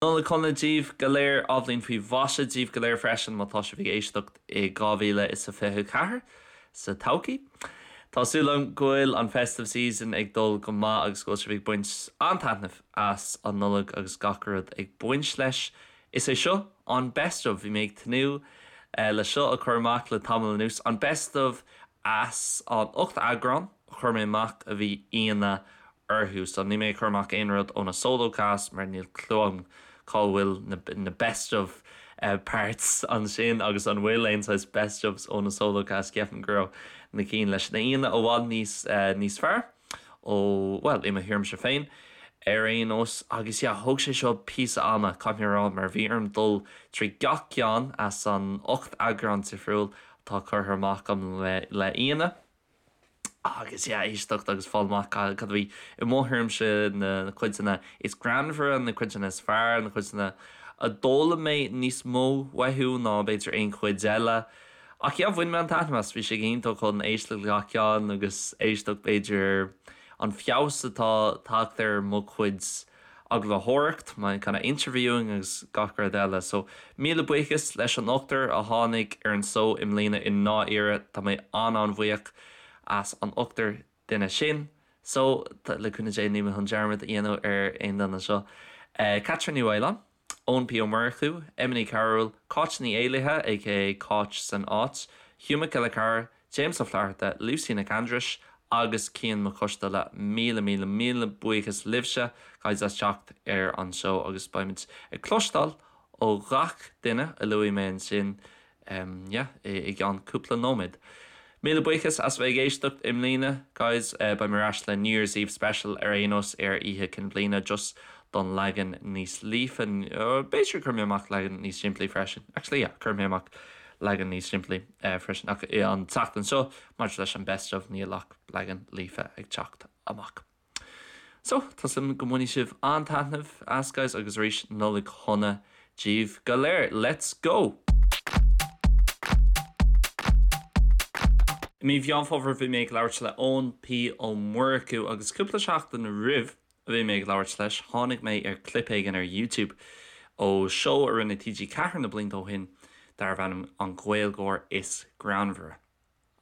Nollaig shona daoibh go léir, athbhliain faoi mhaise daoibh go léir freisin má tá sibh ag éisteacht i 2024 sa todhchaí. Tá súil agam go bhfuil an festive season ag dul go maith agus go bhfuil sibh ag baint an-taitneamh as an Nollaig agus gach rud ag baint leis. Is é seo an best of, bhí mé ag tnúth le seo a chur amach le tamall anuas, an best of as an 8 eagrán a chuir mé amach a bhí aíonna orthu. So níl mé ag cur amach aon rud ó na solo casts mar níl clue agam cá bhfuil na na best of parts ansin agus an bhfuil aon saghas best ofs ó na solo casts. Ceapaim go raibh na cinn leis na aíonna i bhfad níos níos fearr ó bhuel i mo thuairimse féin ar aon nós. Agus yeah thóg sé seo píosa ama caithfidh mé a rá mar bhí orm dul trí gach ceann as an 8 eagrán difriúil atá curtha amach agam le le aíonna. Agus yeah, éisteacht agus fáil amach cad a bhí i mo thuairimse na cuideanna is greannmhaire, na cuideanna is fearr, na cuideanna a d'fhoghlaim mé níos mó uathu ná b'fhéidir aon chuid eile. Ach yeah, bhain mé an-taitneamh as, bhí sé go hiontach chun éisteacht le gach ceann agus éisteacht b'fhéidir ar an feabhas atá tagtha ar mo chuid agallamhóireacht, my kind of interviewing agus gach rud eile. So, míle buíochas leis an ochtar a tháinig ar an seó i mbliana i ndáiríre, tá mé an-an-bhuíoch as an ochtar duine sin. So, le cúnamh Dé níl mé chun dearmad a dhéanamh ar aon duine anseo. Caitríona Ní Mhaoláin, Eoin P Ó Murchú, Emma Ní Chearúil, Cáit Ní Éallaithe aka Cáit san Áit, Hugh Mac Giolla Chearra, James Ó Flatharta, Lucy Nic Aindris agus Cian Mac Coisteala, míle míle míle buíochas libhse guys as teacht ar an seó agus beimid ag cloisteáil ó ghach duine a luaigh mé ansin yeah i gceann cúpla nóiméad. Míle buíochas as bheith ag éisteacht i mbliana guys, beidh mé ar ais le New Year's Eve special ar aon nós ar Oíche Cinn Bliana just don leagan níos líofa, b'fhéidir cuirfidh mé amach leagan níos simplí freisin, actually yeah cuirfidh mé amach leagan níos simplí freisin ach an tseachtain seo maidir leis an best of níl ach leagan líofa ag teacht amach. So, tá súil agam go mbainfidh sibh an-taitneamh as guys agus arís Nollaig shona daoibh go léir. Let's go! I mí Mheán Fómhair bhí mé ag labhairt le Eoin P Ó Murchú agus cúpla seachtain roimh a bhí mé ag labhairt leis, tháinig mé ar clip éigin ar YouTube ó seó a rinne TG4 na blianta ó shin darbh ainm An Gaeilgeoir is Greannmhaire.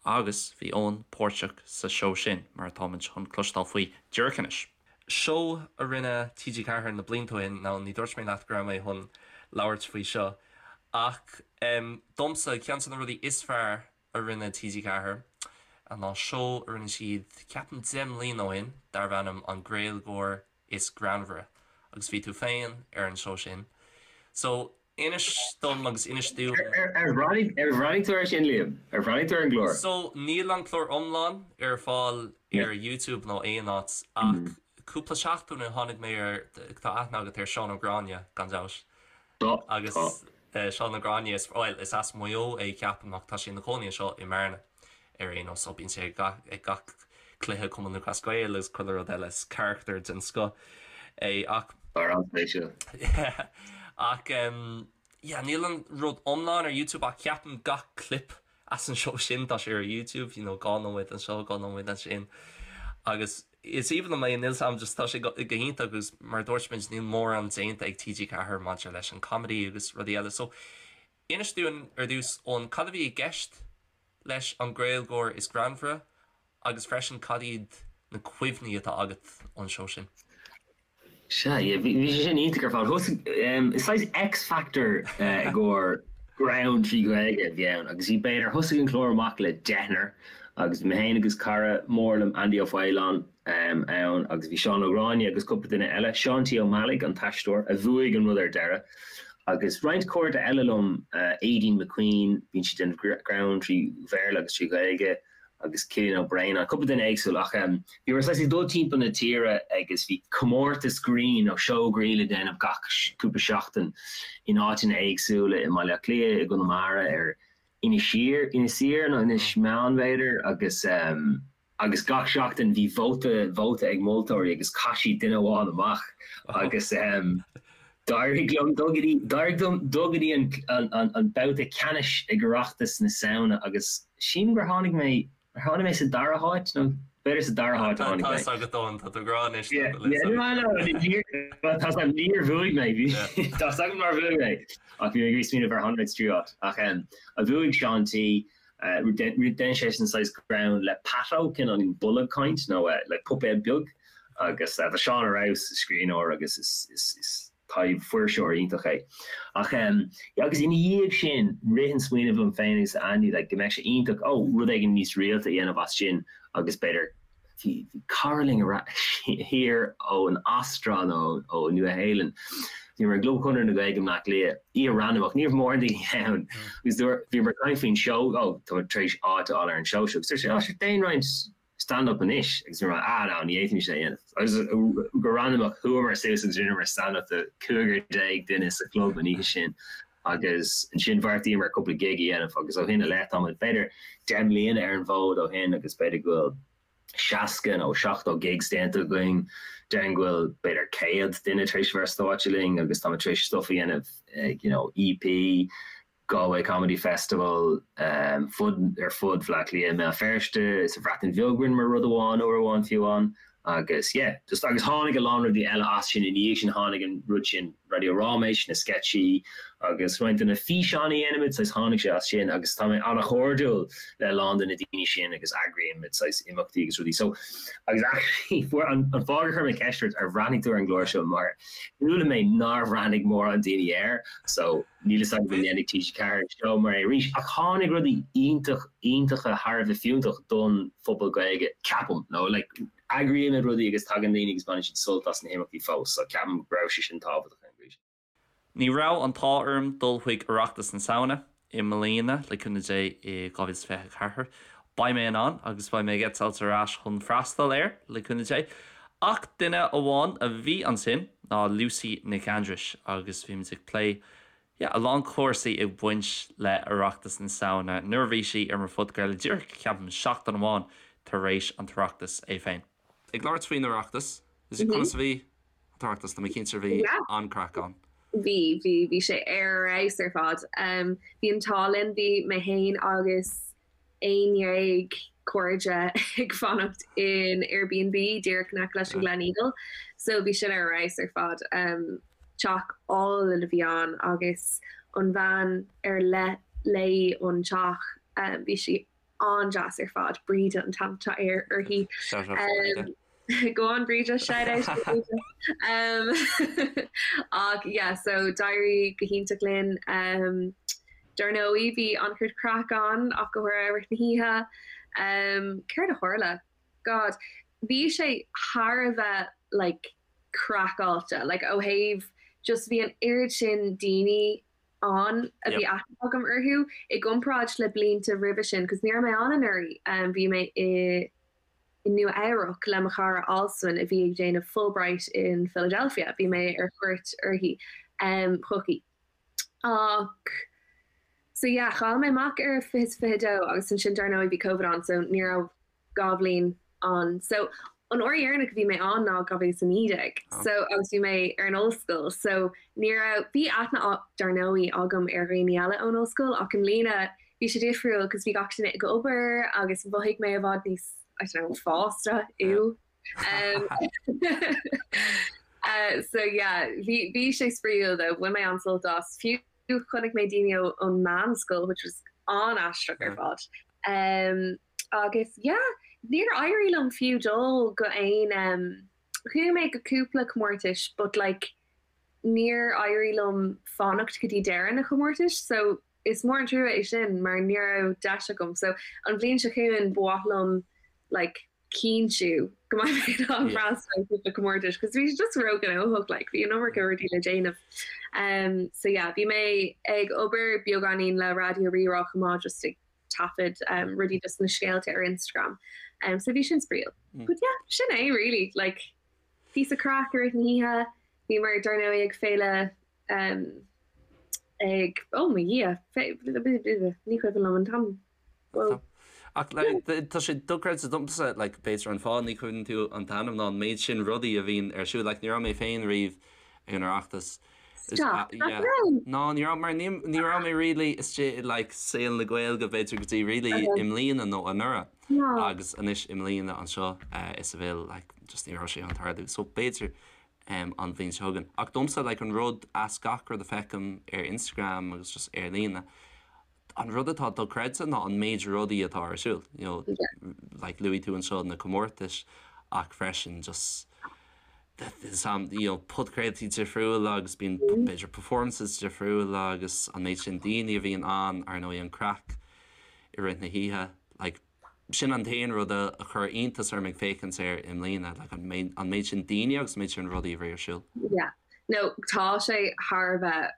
Agus bhí Eoin páirteach sa seó sin, mar atáimid chun cloisteáil faoi díreach anois. Seó a rinne TG4 na blianta ó shin, now ní dúirt mé leat go raibh mé chun labhairt faoi seo, ach domsa, ceann de na rudaí is fearr a rinne TG4 ná seó a rinne siad, ceapaim 10 mbliana ó shin, darbh ainm An Gaeilgeoir is Greannmhaire agus bhí tú féin ar an seó sin. So, inis dom agus inis dúinn. Ar bhreathnaigh tú air sin, Liam? Ar bhreathnaigh tú ar an gclár? So, níl an clár iomlán ar fáil ar YouTube nó aon áit ach cúpla seachtain ó tháinig mé ar, tá aithne agat ar Seán Ó Gráinne, gan dabht. Tá, Agus tá. Seán Ó Gráinne, is, bhuel, is as Maigh Eo é ceapaim ach tá sé ina chónaí anseo i mBearna ar aon nós so bíonn sé ag gach, ag gach cluiche Cumann Lúthchleas Gael agus chuile rud eile, is carachtar den scoth é ach. Fear an-spéisiúil. Yeah ach em yeah níl an rud iomlán ar YouTube ach ceapaim gach clip as an seó sin tá sé ar YouTube, you know, 2 nóiméad anseo, 2 nóiméad ansin agus is aoibhinn liom é, níl 's a'm just tá sé go hiontach agus mar a dúirt muid níl mórán déanta ag TG4 maidir leis an comedy agus rudaí eile so inis dúinn ar dtús Eoin cad a bhí i gceist leis an Gaeilgeoir is Greannmhaire agus freisin cad iad na cuimhní atá agat ón seó sin? Sea, yeah, bhí sé sin iontach ar fad. Thosaigh, is saghas X-Factor i gcomhair greann trí Ghaeilge a bhí ann agus bhí b'fhéidir, thosaigh an clár amach le deichniúr agus bhí mé féin agus cara mór liom, Andy Ó Faoláin, ann agus bhí Seán Ó Gráinne agus cúpla duine eile, Seán T. Ó Meallaigh, an t-aisteoir, a bhuaigh an rud ar deireadh agus roinnt cairde eile liom, Aideen McQueen, bíonn sí ag déanamh greann trí Bhéarla agus trí Ghaeilge, agus Cillian Ó Braonáin, cúpla duine éagsúil ach bhíomar saghas ag dul timpeall na tíre agus bhí comórtas grinn nó seó grinn le déanamh gach cúpla seachtain in áiteanna éagsúla i mBaile Átha Cliath, i gConamara, ar Inis Oírr, Inis Oírr nó Inis Meáin b'fhéidir agus agus gach seachtain bhí vóta vóta ag moltóirí agus chaith siad duine amháin amach agus D'éirigh liom dul go dtí, d'éirigh liom dul go dtí an, an, an babhta ceannais ag Oireachtas na Samhna agus sílim gur tháinig mé, ar tháinig mé sa dara háit nó B'fhéidir sa dara háit a tháinig mé. Tá 'fhios agat Eoin, tá tú ag rá anois. Tá 'fhios agam, níor bhuaigh mé, tá 'fhios agam nár bhuaigh mé, ach bhí mé ag iarraidh smaoineamh ar tháinig mé sa tríú háit. Ach bhuaigh Seán T, dhein seisean saghas greann le Pato, cineál bolg caint nó like puipéad beag agus tá Seán ar fheabhas, is scríbhneoir agus is taibh-fuirseoir iontach é. Ach yeah agus ina dhiaidh sin rith an smaoineamh liom féin agus Andy like go mbeadh sé iontach oh rud éigin níos rialta a dhéanamh as sin agus b'fhéidir bhí bhí cara linn ar thiar ón Astráil nó ó Nua Shéalainn bhíomar i gClub Chonradh na Gaeilge i mBleá Cliath oíche randamach ní raibh mórán daoine ann agus dúirt bhíomar ag caint faoin seó oh tá mé tar éis áit a fháil ar an seó seo agus dúirt sé oh sure déan roinnt stand up anois agus bhí mé ah no ní fhéadfaimis é a dhéanamh agus go randamach chuamar suas agus rinneamar stand up do 15 duine sa chlub an oíche sin agus ansin bheartaíomar cúpla gig a dhéanamh agus ó shin i leith táimid b'fhéidir 10 mbliana ar an bhfód ó shin agus b'fhéidir go bhfuil 60 nó 70 gigs déanta againn déarfainn go bhfuil b'fhéidir 100 duine tar éis a bheith ar stáitse linn agus táimid tar éis stuff a dhéanamh ag you know EP Galway Comedy Festival, fud ar fud Bhaile Átha Cliath, i mBéal Feirste, sa Bhreatain Bheag rinneamar rud amháin uair amháin fiú amháin agus yeah just agus tháinig a lán rudaí eile as sin ina dhiaidh sin tháinig an rud sin Raidió Ráiméis, na sceitsí agus roinnt de na físeáin a dhéanaimid saghas tháinig sé as sin agus tá mé an-chairdiúil le a lán de na daoine sin agus eagraímid saghas imeachtaí agus rudaí so agus actually fuair an an fáth gur chuir mé ceist ort ar bhreathnaigh tú ar an gclár seo mar chuala mé nár bhreathnaigh mórán daoine air so Níl fhios agam an ndéanfaidh TG4 seó mar é arís, ach tháinig rudaí iontach, iontacha thar a bheith fiúntach don phobal Gaeilge, ceapaim. Nó like, eagraímid rudaí agus tagann daoine agus baineann siad sult as na himeachtaí fós, so ceapaim go raibh sé sin tábhachtach ar an gcaoi sin. Ní raibh an t-ádh orm dul chuig Oireachtas na Samhna i mbliana, le cúnamh Dé i 2024. Beidh mé in ann agus beidh mé ag eitilt ar ais chun freastal air, le cúnamh Dé. Ach duine amháin a bhí ansin ná Lucy Nic Aindris agus bhí muid ag plé, yeah, a lán cúrsaí ag baint le Oireachtas na Samhna nuair a bhí sí ar mo phodchraoladh díreach, ceapaim, seachtain amháin tar éis an tOireachtas é féin. Ag labhairt faoin Oireachtas, conas a bhí an tOireachtas? Tá mé cinnte bhí an-craic ann. Bhí, bhí, bhí sé ar fheabhas ar fad. Bhí an t-ádh linn, bhí mé féin agus 11 cairde ag fanacht in Airbnb díreach in aice leis an Gleneagle so bhí sin ar fheabhas ar fad. Teach álainn a bhí ann agus an bhean ar le léi an teach bhí sí an-deas ar fad, Bríde an t-ainm atá uirthi. Shout out for Bríde. Go on Bríde, shout out to Bríde. Um, ach yeah, so d'éirigh go hiontach linn. Um, dar ndóigh bhí an-chuid craic ann ach go háirithe i rith na hoíche. Um, céard a tharla? God, bhí sé thar a bheith like craiceáilte, like ó thaobh just bhí an oiread sin daoine ann a bhí aithne agam orthu i gcomparáid le blianta roimhe sin, cos ní raibh mé ann anuraidh, um, bhí mé i i Nua Eabhrac le mo chara Alswyn a bhí ag déanamh Fulbright in Philadelphia, bhí mé ar cuairt uirthi, chuici. Ach, so yeah, chaill mé amach ar 2022 agus ansin dar ndóigh bhí Covid ann so ní raibh 2 bhliain ann. So an uair dheireanach a bhí mé ann ná 2019 so agus bhí mé ar an ollscoil so ní raibh, bhí aithne dar ndóigh agam ar dhaoine eile ón ollscoil ach i mbliana bhí sé difriúil cos bhí gach duine ag obair agus mhothaigh mé i bhfad níos, I don't know, fásta, ew. Um, uh, so yeah, bhí, bhí sé spraíúil though, bhain mé an-sult as. Fiú chonaic mé daoine ón meánscoil, which was an-aisteach ar fad. Um, agus yeah, níor éirigh liom fiú dul go aon um, chuaigh mé go cúpla comórtais but like níor éirigh liom fanacht go dtí deireadh na comórtais so Is mór an trua é sin mar ní raibh deis agam so an bhliain seo chugainn ba mhaith liom like cinntiú go mbeidh mé in ann freastal ar cúpla comórtais cos bhí sé just róghnóthach like bhí an iomarca rudaí le déanamh. Um so yeah bhí mé ag obair beagáinín le Raidió Rí-Rá chomh maith just ag taifead um rudaí just na scéalta ar Instagram um so bhí sin spraíúil. But yeah sin é really like píosa craic i rith na hoíche bhíomar dar ndóigh ag féile um ag, oh mo Dhia, ní cuimhin liom an t-ainm. Whoa. Ach like, tá sé dochreidte domsa, like, b'fhéidir an fáth ní chuimhníonn tú an t-ainm ná an méid sin rudaí a bhíonn ar siúl. Like, ní raibh mé féin riamh ag an Oireachtas. Stop, nach raibh? Ná, ní raibh, mar ní, ní raibh mé really istigh i like, saol na Gaeilge b'fhéidir go dtí really i mbliana nó anuraidh. Agus anois i mbliana anseo i Seville like just ní raibh sé chun tarlú. So b'fhéidir an bhliain seo chugainn. Ach domsa like an rud as gach rud a feicim ar Instagram agus just ar líne, an rud atá dochreidte ná an méid rudaí atá ar siúl. You know, like luaigh tú anseo na comórtais ach freisin just some you know podchraoltaí difriúla agus bíonn b'fhéidir performances difriúla agus an méid sin daoine a bhíonn ann, ar ndóigh an craic i rith na hoíche. Like, sin an t-aon rud a chuir iontas orm ag féachaint air i mbliana, like an méid, an méid sin daoine agus an méid sin rudaí a bhí ar siúl. Yeah. No, tá sé thar a bheith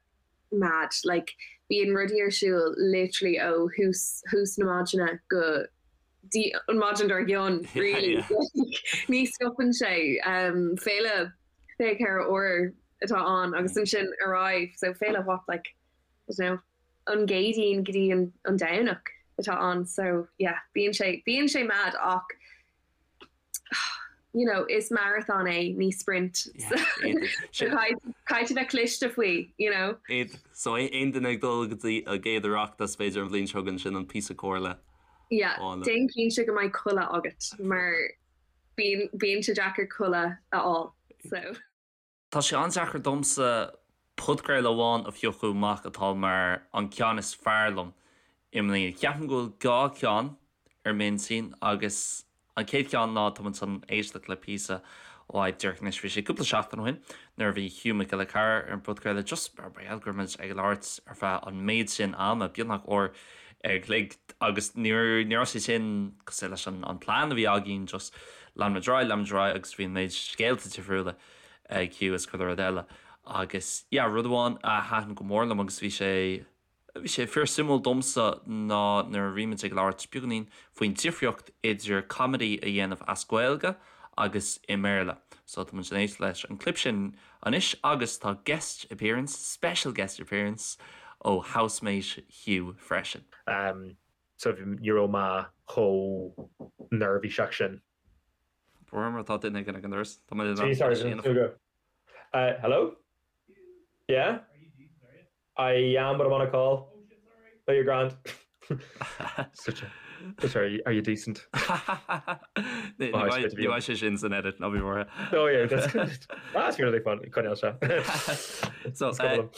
mad. Like, bíonn rudaí ar siúl literally ó thús, thús na maidine go dtí an maidin dár gcionn, really. Yeah, yeah. Ní stopann sé. Um, féile 24 uair atá ann agus ansin ar aghaidh. So féile what, like, I don't know, an gCéadaoin go dtí an Domhnach atá ann so yeah bíonn sé bíonn sé mad ach you know is marathon é ní sprint so caithfidh tú bheith cliste faoi you know. So aon duine ag dul go dtí a gcéad Oireachtas b'fhéidir an bhliain seo chugainn sin an píosa comhairle. Yeah déan cinnte go mbeidh codladh agat mar bíonn bíonn sé deacair codladh a fháil so. Tá sé an-deacair domsa podchraoladh amháin a phiocadh amach atá mar an ceann is fearr liom i mbliana. Ceapaim go bhfuil 2 cheann ar m'intinn agus an chéad cheann ná tá muid chun éisteacht le píosa uaidh díreach anois. Bhí sé cúpla seachtain ó shin nuair a bhí Hugh Mac Giolla Chearra ar an bpodchraoladh just mar gheall go raibh muid ag labhairt ar feadh an méid sin ama, beagnach uair an chloig agus ní raibh sé sin cosúil leis an plean a bhí againn just lean muid ar aghaidh, lean muid ar aghaidh agus bhí an méid scéalta difriúla ag Hugh is chuile rud eile. Agus yeah, rud amháin a thaitin go mór liom agus bhí sé, bhí sé fíor suimiúil domsa ná nuair a bhí muid ag labhairt beagáinín faoin difríocht idir comedy a dhéanamh as Gaeilge agus i mBéarla. So tá muid ag éisteacht leis an clip sin anois agus tá guest appearance, special guest appearance ó housemate Hugh freisin. Um, so ní raibh mé chomh neirbhíseach sin. Mar tá duine ag an doras. Tá mé Sorry, sorry, go. Uh, hello? Yeah? I am, but I'm on a call. Oh, you're grand. Such a, sorry, are you decent? Ní bheidh sé sin san edit ná bí buartha. Oh yeah, that's good. That's really fun. Coinneáil se. So, uh,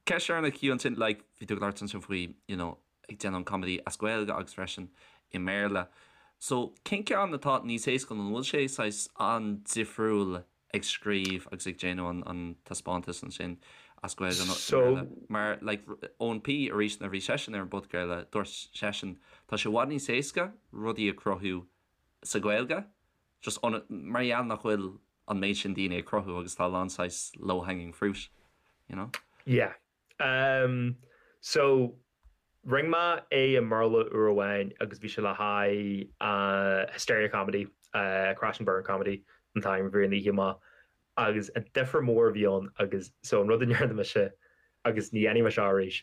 ceist ar na Hugh ansin, like, bhí tú ag labhairt ansin faoi, you know, ag déanamh an comedy as Gaeilge agus freisin i mBéarla. So, cén ceann atá níos éasca nó an bhfuil sé saghas an-difriúil ag scríobh agus ag déanamh an an taispeántas ansin as Gaeilge nó i mBéarla? Mar like Eoin P arís nuair a bhí seisean ar an bpodchraoladh dúirt seisean tá sé i bhfad níos éasca rudaí a chruthú sa Ghaeilge just mar gheall nach bhfuil an méid sin daoine ag cruthú agus tá a lán saghas low hanging fruit, you know? Yeah. Um, so, rinne mé é i mBéarla uair amháin agus bhí sé le haghaidh uh, Hysteria Comedy, uh, Crash and Burn Comedy an t-ainm a bhí ar an oíche amach agus an difear mór a bhí ann agus so an rud a ndearna mise agus ní dhéanfaidh mé seo arís,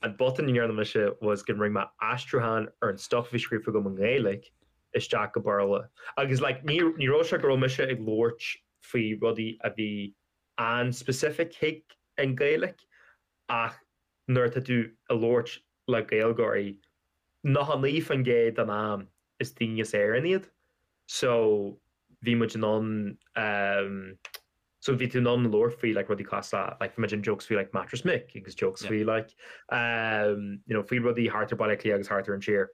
an botún a ndearna mise was go rinne mé aistriúchán ar an stuff a bhí scríofa agam i nGaeilge isteach go Béarla agus like ní ní raibh sé go raibh mise ag labhairt faoi rudaí a bhí an-specific chuig an Ghaeilge ach nuair atá tú ag labhairt le Gaeilgeoirí, 99% den am is daoine as Éirinn iad so bhí muid in ann so bhí tú in ann labhairt faoi like rudaí cosúil le like bhí muid in jokes faoi like Mattress Mick agus jokes faoi like you know faoi rudaí thart ar Baile Átha Cliath agus thart ar an tír.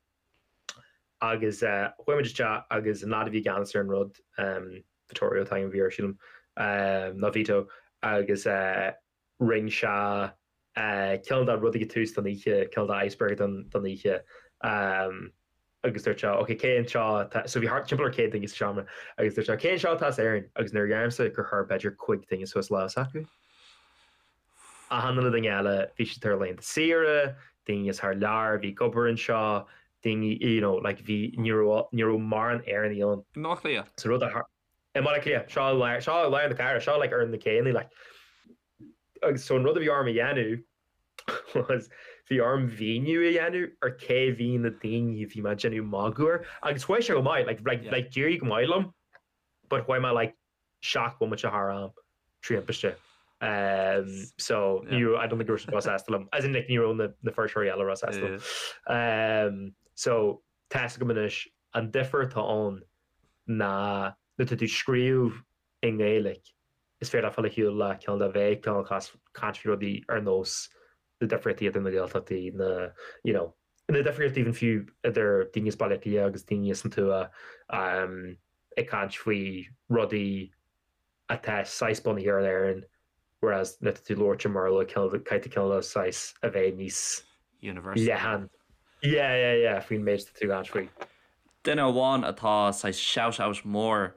Agus chuaigh muid isteach agus an lad a bhí i gceannas ar an rud, Vittorio an t-ainm a bhí air sílim, nó Vito, agus rinne sé cineál de rud ag tús don oíche, cineál de icebreaker don oíche agus dúirt sé ok cé anseo atá, so bhí thart timpeall ar 100 duine sa seomra agus dúirt sé cé anseo atá as Éirinn agus nuair a deirimse gur chuir b'fhéidir 5 duine suas lámh s'acu. Achan uile duine eile, bhí siad ar laethanta saoire, daoine as thar lear a bhí ag obair anseo, daoine, you know, like bhí, ní raibh, ní raibh mórán Éireannaigh ann. I mBaile Átha Cliath? So rud a thar, i mBaile Átha Cliath, seo i lár, seo i lár na cathrach, seo like ar na céanna, like. Agus so an rud a bhí orm a dhéanamh was bhí orm mhíniú a dhéanamh ar cé bhí na daoine a bhí mé ag déanamh magadh air agus chuaigh sé go maith, like, like, like d'éirigh go maith liom but chuaigh mé like 7 bhomaite thar am trí thimpiste. So ní raibh, I don't think go raibh siad róshásta liom. As in like ní raibh na na fuirseoirí eile róshásta liom. So tá a fhios agam anois. An difear atá ann ná nuair atá tú ag scríobh i nGaeilge, is féidir leat fáil ar shiúl le cineál de bheith cineál caint faoi rudaí ar nós na difríochtaí idir na Gaeltachtaí, na, you know, na difríochtaí even fiú idir daoine as Baile Átha Cliath agus daoine as an tuath, ag caint faoi rudaí atá saghas bunaithe ar Éirinn, whereas nuair atá tú ag labhairt i mBéarla, caithfidh tú cineál de saghas a bheith níos Universal. leathan. Yeah, yeah, yeah, faoin méid atá tú ag caint faoi. Duine amháin atá saghas shout out mór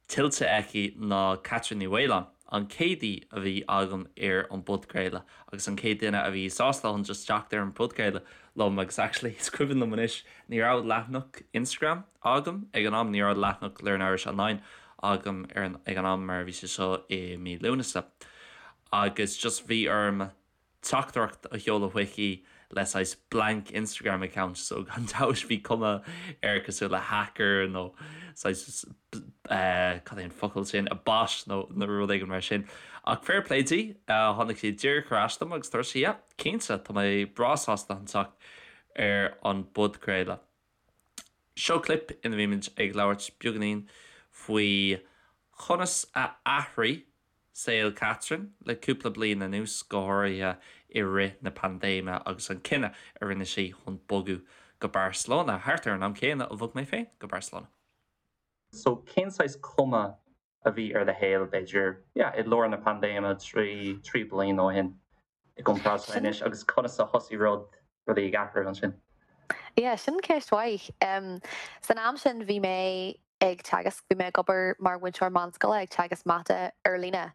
tuillte aici ná Catherine Ní Mhaoláin, an chéad aoi a bhí agam ar an bpodchraoladh agus an chéad duine a bhí sásta chun just teacht ar an bpodchraoladh liom agus actually is cuimhin liom anois ní raibh leathanach Instagram agam ag an am, ní raibh leathanach Learn Irish Online agam ar an ag an am mar bhí sé seo i mí Lúnasa agus just bhí orm teachtaireacht a sheoladh chuici le saghas blank Instagram account so gan dabht bhí cuma air cosúil le hacker nó saghas cad é an focal sin, a bot nó nó rud éigin mar sin. Ach fair play di, tháinig sí díreach ar ais dom agus dúirt sí yeah, cinnte, tá mé breá sásta chun teacht ar an bpodchraoladh. Seo clip ina mbímid ag labhairt beagáinín faoi chonas a athraigh saol Catherine le cúpla bliain anuas, go háirithe i rith na paindéime agus an cinneadh a rinne sí chun bogadh go Barcelona, thart ar an am céanna a bhog mé féin go Barcelona. So cén saghas cuma a bhí ar do shaol, b'fhéidir, yeah, i lár na paindéime 3, 3 bliana ó shin i gcomparáid le anois agus conas a thosaigh rud, rudaí ag athrú ansin? Yeah, sin ceist mhaith. San am sin bhí mé ag teagasc, bhí mé ag obair mar mhúinteoir meánscoile ag teagasc mata ar líne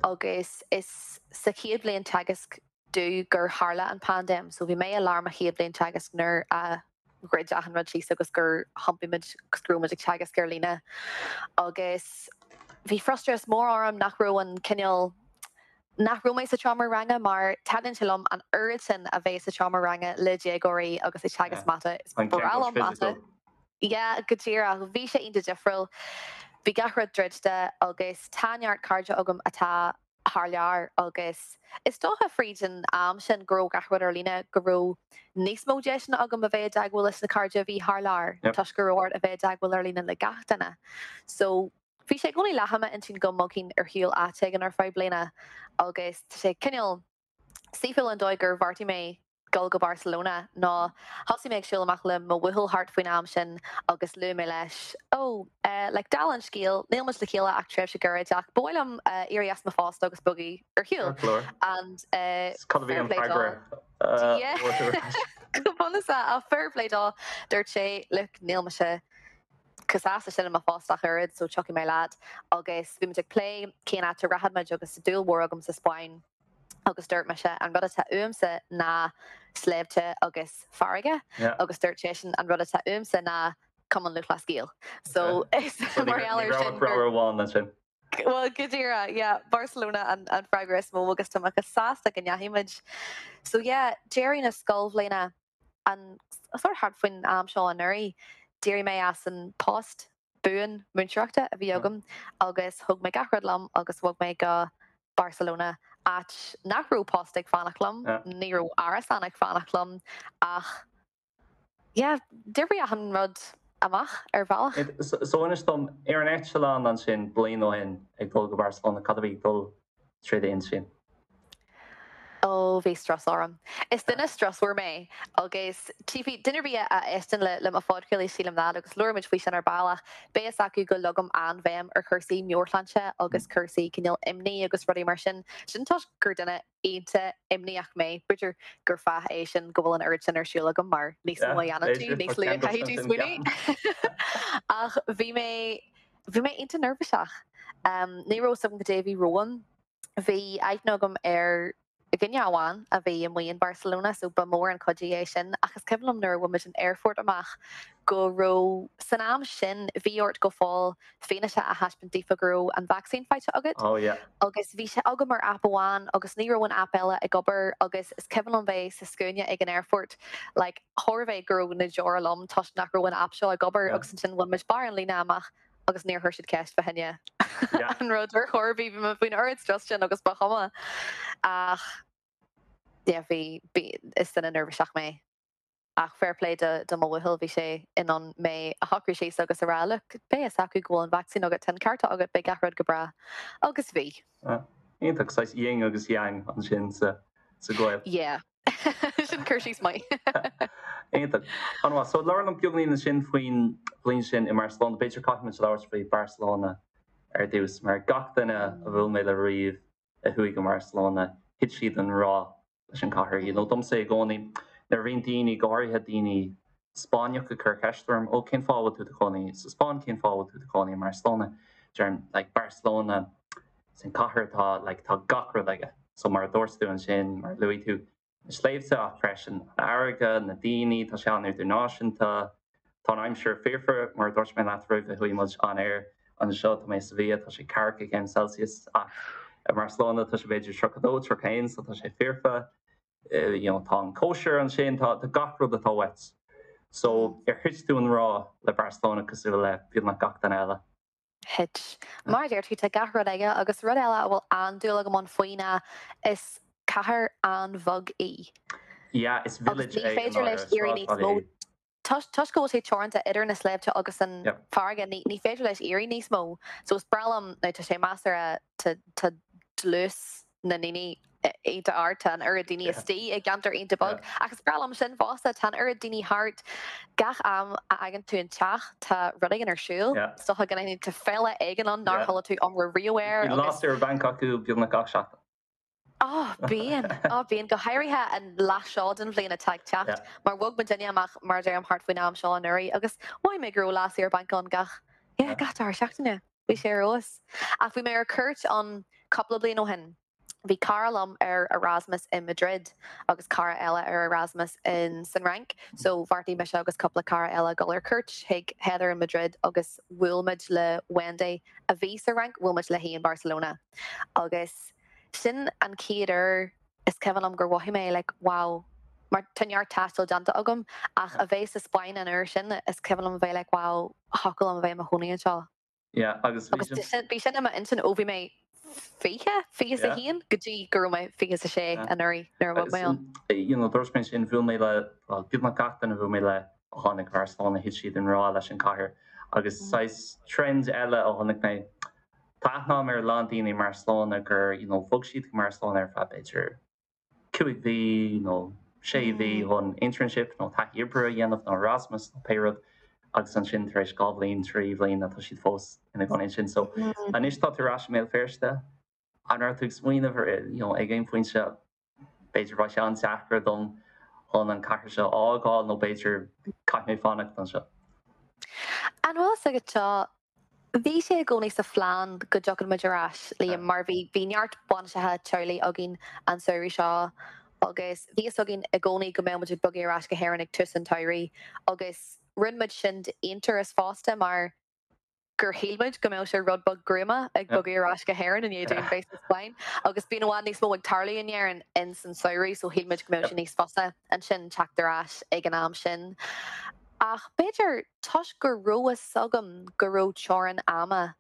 agus is sa chéad bhliain teagaisc domh gur tharla an paindéim. So bhí mé i lár mo chéad bhliain teagaisc nuair a dhruid achan rud síos agus gur thiompaigh muid agus go raibh muid ag teagasc ar líne. Agus bhí frustrachas mór orm nach raibh an cineál, nach raibh mé sa tseomra ranga mar taitníonn sé liom an oiread sin a bheith sa tseomra ranga le déagóirí agus ag teagasc mata. Is breá liom mata. Yeah, go díreach. Bhí sé iontach difriúil. Bhí gach rud druidte agus tá neart cairde agam atá thar lear agus is dócha fríd an am sin go raibh gach rud ar líne go raibh níos mó deiseanna agam a bheith i dteagmháil leis na cairde a bhí thar lear toisc go raibh ort a bheith i dteagmháil ar líne le gach duine. So bhí sé i gcónaí leath i m'intinn go mbogfainn ar shiúl áit éigin ar feadh bliana agus tá sé cineál saoithiúil an dóigh gur bheartaigh mé dul go Barcelona ná thosaigh mé ag siúl amach le mo bhuachaill thart faoin am sin agus luaigh mé leis, oh, eh, like, dála an scéil, níl muid le chéile ach tréimhse gairid ach ba mhaith liom eh, éirí as mo phost agus bogadh ar shiúl. Ceart go leor. And eh, Cad a bhí fair an play dó. freagra? eh, Yeah. a fuair tú ar ais? Go bunúsach, ach fair play dó, dúirt sé, look, níl mise chomh sásta sin i mo phost ach oiread, so tiocfaidh mé leat. Agus bhí muid ag plé cén áit a rachadh muid agus dúil mhór agam sa Spáinn. agus dúirt mise an rud atá uaimse ná sléibhte agus farraige agus dúirt seisean an rud atá uaimse ná Cumann Lúthchleas Gael. So is mar gheall Ní air raibh sin ach rogha amháin ansin. Bhuel go díreach, yeah, Barcelona an an freagra is mó agus tá mé chomh sásta go ndeachaigh muid. So yeah, deireadh na scoilbhliana an sort thart faoin am seo anuraidh, d'éirigh mé as an post buan múinteoireachta a bhí agam agus thóg mé gach rud liom agus bhog mé go Barcelona, áit nach raibh post ag fanacht liom, ní raibh árasán ag fanacht liom ach yeah, d'oibrigh achan rud amach ar bhealach. So inis dom, ar an eitleán ansin bliain ó shin ag dul go Barcelona, cad a bhí ag dul trí d'intinn? Ó, bhí strus orm. Is duine strusmhar mé agus tchífidh duine ar bith a éisteann le mo phodchraoladh, sílim that, agus labhair muid faoi sin ar ball ach beidh fhios acu go leagaim an-bhéim ar chúrsaí meabhairshláinte agus cúrsaí cineál imní agus rudaí mar sin. Sin toisc gur duine iontach imníoch mé. B'fhéidir gur fáth é sin go bhfuil an oiread sin ar siúl agam mar níos mó a dhéanann tú, níos lú a chaithfidh tú smaoineamh. Ach bhí mé, bhí mé iontach neirbhíseach. Ní raibh fhios agam cad é a bhí romham. Bhí aithne agam ar dhuine amháin a bhí amuigh in Barcelona so ba mhór an cuidiú é sin ach is cuimhin liom nuair a bhain muid an aerfort amach go raibh, san am sin bhí ort go fóill fianaise a thaispeáint daofa go raibh an vacsaín faighte agat Oh yeah. agus bhí sé agam ar aip amháin agus ní raibh an aip eile ag obair agus is cuimhin liom bheith sa scuaine ag an aerfort like chóir a bheith go raibh na deora liom toisc nach raibh an aip seo ag obair agus ansin bhain muid barr an líne amach agus níor chuir siad ceist fá choinne an rud ar chor ar bith, bhí mé faoin oiread strus sin agus ba chuma. Ach yeah, bhí, bhí, is duine neirbhíseach mé. Ach fair play do do mo bhuachaill, bhí sé in ann mé a shocrú síos agus a rá look, beidh fhios acu go bhfuil an vacsaín agat, tá an cárta agat, beidh gach rud go breá. Agus bhí. Iontach, saghas yin agus yang ansin sa sa ghaol. Yeah. Sin cur síos maith. Iontach. An-mhaith. So labhair liom beagáinín ansin faoin bhliain sin i mBarcelona. B'fhéidir caithfidh muid labhairt faoi Barcelona ar dtús, mar gach duine a bhuail mé le riamh a chuaigh go mBarcelona, thit siad i ngrá leis an chathair. You know, domsa i gcónaí, nuair a bhíonn daoine, go háirithe daoine Spáinneach ag cur ceist orm, ó cén fáth a bhfuil tú i do chónaí sa Spáinn, cén fáth a bhfuil tú i do chónaí i mBarcelona? Deirim, like, Barcelona, is an cathair atá, like, tá gach rud aige. So mar a dúirt tú ansin, mar a luaigh tú, na sléibhte ach freisin an fharraige, na daoine, tá sé an-idirnáisiúnta, tá an aimsir foirfe, mar a dúirt mé leat roimh a chuaigh muid on air anseo, tá mé sa Mhí, tá sé ceathracha céim Celsius ach i mBarcelona tá sé b'fhéidir 32, 31 so tá sé foirfe, you know, tá an cóisir ansin, tá gach rud atá uait. So ar thit tú i ngrá le Barcelona cosúil le beagnach gach duine eile? Thit. Mar a deir tú, tá gach rud aige agus rud eile a bhfuil an-dúil agam ann faoi ná is cathair an-bheag í. Yeah, is village é. Agus ní féidir leis éirí níos mó. Toisc go bhfuil sé teoranta idir na sléibhte agus an farraige, ní féidir leis éirí níos mó. So is breá liom, now tá sé measartha, tá dlús na ndaoine iontach ard, tá an oiread daoine istigh i gceantar iontach beag, ach is breá liom sin fosta, tá an oiread daoine thart, gach am a fhágann tú an teach tá rud éigin ar siúl, is dócha go n-aithníonn tú féile éigin ann nár chuala tú iomrá riamh air agus. Bíonn lá saoire bainc acu beagnach gach seachtain. Ó, bíonn, ó bíonn, go háirithe an leath seo den bhliain atá ag teacht, mar bhog muidinne amach mar a deirim thart faoin am seo anuraidh agus mhothaigh mé go raibh lá saoire bainc ann gach, yeah, gach dara seachtaine. Bhí sé ar fheabhas. Ach bhí mé ar cuairt ann cúpla bliain ó shin. Bhí cara liom ar Erasmus i Madrid agus cara eile ar Erasmus in san Fhrainc so bheartaigh mise agus cúpla cara eile dul ar cuairt chuig Heather in Madrid agus bhuail muid le Wendy a bhí sa Fhrainc, bhuail muid léi in Barcelona agus sin an chéad uair is cuimhin liom gur mhothaigh mé like wow mar tá neart taistil déanta agam ach a bheith sa Spáinn an uair sin is cuimhin liom a bheith like wow thiocfadh liom a bheith i mo chónaí anseo. Yeah, agus bhí sin. Bhí sin i m'intinn ó bhí mé 20, 21 go dtí go raibh mé 26 anuraidh nuair a bhog mé ann. You know, dúirt mé sin, bhuail mé le, well, beagnach gach duine a bhuail mé le a tháinig go Barcelona, thit siad i ngrá leis an chathair. Agus saghas trend eile a chonaic mé, tá aithne agam ar a lán daoine i mBarcelona gur, you know, bhog siad go Barcelona ar feadh b'fhéidir 5 mhí nó 6 mhí chun internship nó taithí oibre a dhéanamh nó Erasmus nó pé rud agus ansin tar éis 2 bhliain, 3 bhliain tá siad fós ina gcónaí ansin. So anois tá tú ar ais i mBéal Feirste, an raibh tú ag smaoineamh ar you know ag aon phointe b'fhéidir beidh sé an-deacair dom chun an cathair seo a fhágáil nó b'fhéidir caithfidh mé fanacht anseo? An bhfuil fhios agat seo Bhí sé i gcónaí sa phlean go dtiocfadh muid ar ais, Liam, mar bhí bhí neart bainiseacha teaghlaigh againn an samhradh seo agus bhí fhios againn i gcónaí go mbeadh muid ag bogadh ar ais go hÉirinn ag tús an tsamhraidh agus rinne muid sin d'aonturas fosta mar gur shíl muid go mbeadh sé rud beag gruama ag bogadh ar ais go hÉirinn i ndiaidh dúinn bheith sa Spáinn agus bíonn i bhfad níos mó ag tarlú in Éirinn ins an samhradh so shíl muid go mbeadh sé níos fusa ansin teacht ar ais ag an am sin. Ach b'fhéidir toisc go raibh fhios agam go raibh teorainn ama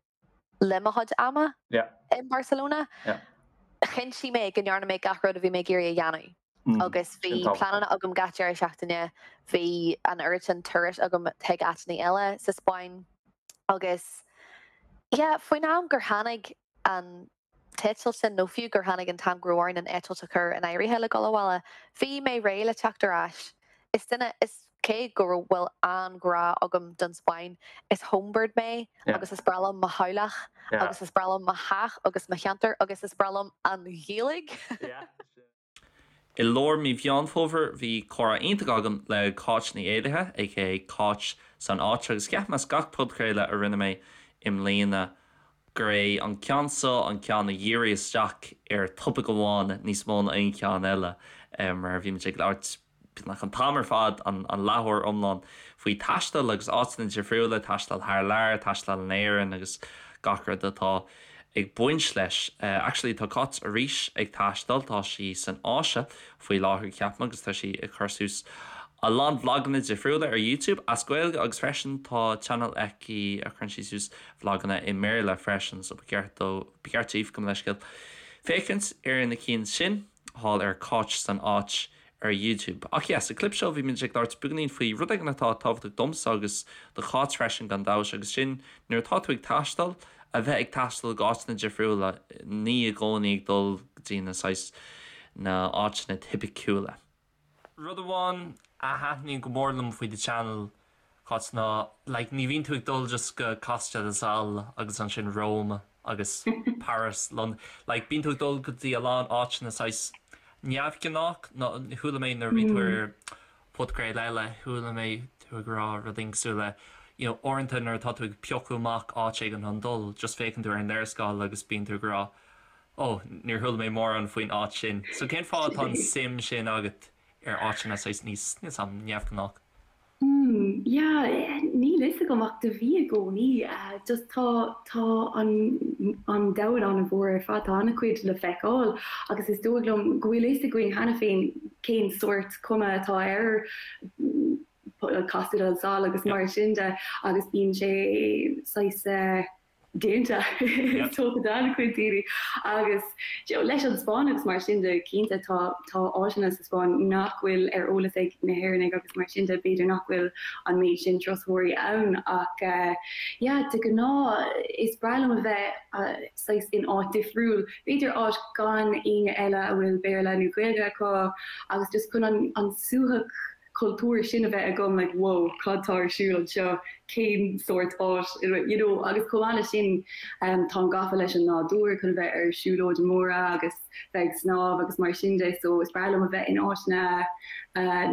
le mo chuid ama i mBarcelona, chinntigh mé go ndearna mé gach rud a bhí mé ag iarraidh a dhéanamh. Agus bhí pleananna agam gach deireadh seachtaine, bhí an oiread sin turais agam chuig áiteanna eile sa Spáinn agus yeah, faoin am gur tháinig an t-eitilt sin, nó fiú gur tháinig an t-am go raibh orainn an eitilt a chur in áirithe le dul abhaile, bhí mé réidh le teacht ar ais. Is duine, is cé go bhfuil an-ghrá agam don Spáinn, is homebird mé agus is breá liom mo theaghlach agus is breá liom mo theach agus mo cheantar agus is breá liom an Ghaeilge. I lár mí Mheán Fómhair bhí comhrá iontach agam le Cáit Ní Éallaithe, aka Cáit san Áit, agus ceapaim as gach podchraoladh a rinne mé i mbliana gur é an ceann seo an ceann a dhírigh isteach ar topaic amháin níos mó ná aon cheann eile mar bhí muid ag labhairt beagnach an t-am ar fad, an leathuair iomlán, faoi taisteal agus áiteanna difriúla, taisteal thar lear, taisteal in Éirinn agus gach rud atá ag baint leis. Actually tá Cáit arís ag taisteal, tá sí san Áise faoi láthair ceapaim agus tá sí ag cur suas a lán vloganna difriúla ar YouTube as Gaeilge agus freisin tá channel aici a chuireann sí suas vloganna i mBéarla freisin so ba cheart dó, ba cheart daoibh, gabh mo leithscéal, féachaint ar na cinn sin thall ar Cáit san Áit. ar YouTube. Ach yeah, sa clip seo bhí muid ag labhairt beagáinín faoi rud éigin atá tábhachtach domsa agus do Cháit freisin gan dabht agus sin nuair atá tú ag taisteal, a bheith ag taisteal go áiteanna difriúla, ní i gcónaí ag dul go dtí na saghas na áiteanna tipiciúla. Rud amháin a thaitníonn go mór liom faoi do channel, Cáit, ná like ní bhíonn tú ag dul just go Costa del Sol agus ansin Rome agus Paris, London, like bíonn tú ag dul go dtí a lán áiteanna saghas neamhghnách nó chuala mé nuair a bhí tú ar podchraoladh eile, chuala mé tú ag rá rud éigin cosúil le you know uaireanta nuair atá tú ag piocadh amach áit éigin chun dul, just féachann tú ar an léarscáil agus bíonn tú ag rá oh níor chuala mé mórán faoin áit sin. So cén fáth atá an suim sin agat ar áiteanna saghas níos, níl 's a'm, neamhghnách? Hmm, yeah, níl fhios agam ach do bhí i gcónaí. Just tá, tá an, an domhan an-mhór ar fad, tá an-chuid le feiceáil agus is dóigh liom go bhfuil fhios againn cheana féin cén sórt cuma atá ar Costa del Sol agus mar sin de agus bíonn sé saghas eh, déanta is dócha d'an-chuid daoine agus leis an Spáinn agus mar sin de cinnte tá tá áiteanna sa Spáinn nach bhfuil ar eolas ag na hÉireannaigh agus mar sin de b'fhéidir nach bhfuil an méid sin turasóirí ann ach yeah de ghnáth is breá liom a bheith saghas in áit difriúil b'fhéidir áit gan éinne eile a bhfuil Béarla nó Gaeilge acu agus just chun an an suaitheadh cultúir sin a bheith agam like whoa cad tá ar siúl anseo, cén sórt áit you know agus chomh maith leis sin táim gafa leis an nádúr chun a bheith ar siúlóidí móra agus bheith ag snámh agus mar sin de so is breá liom a bheith in áiteanna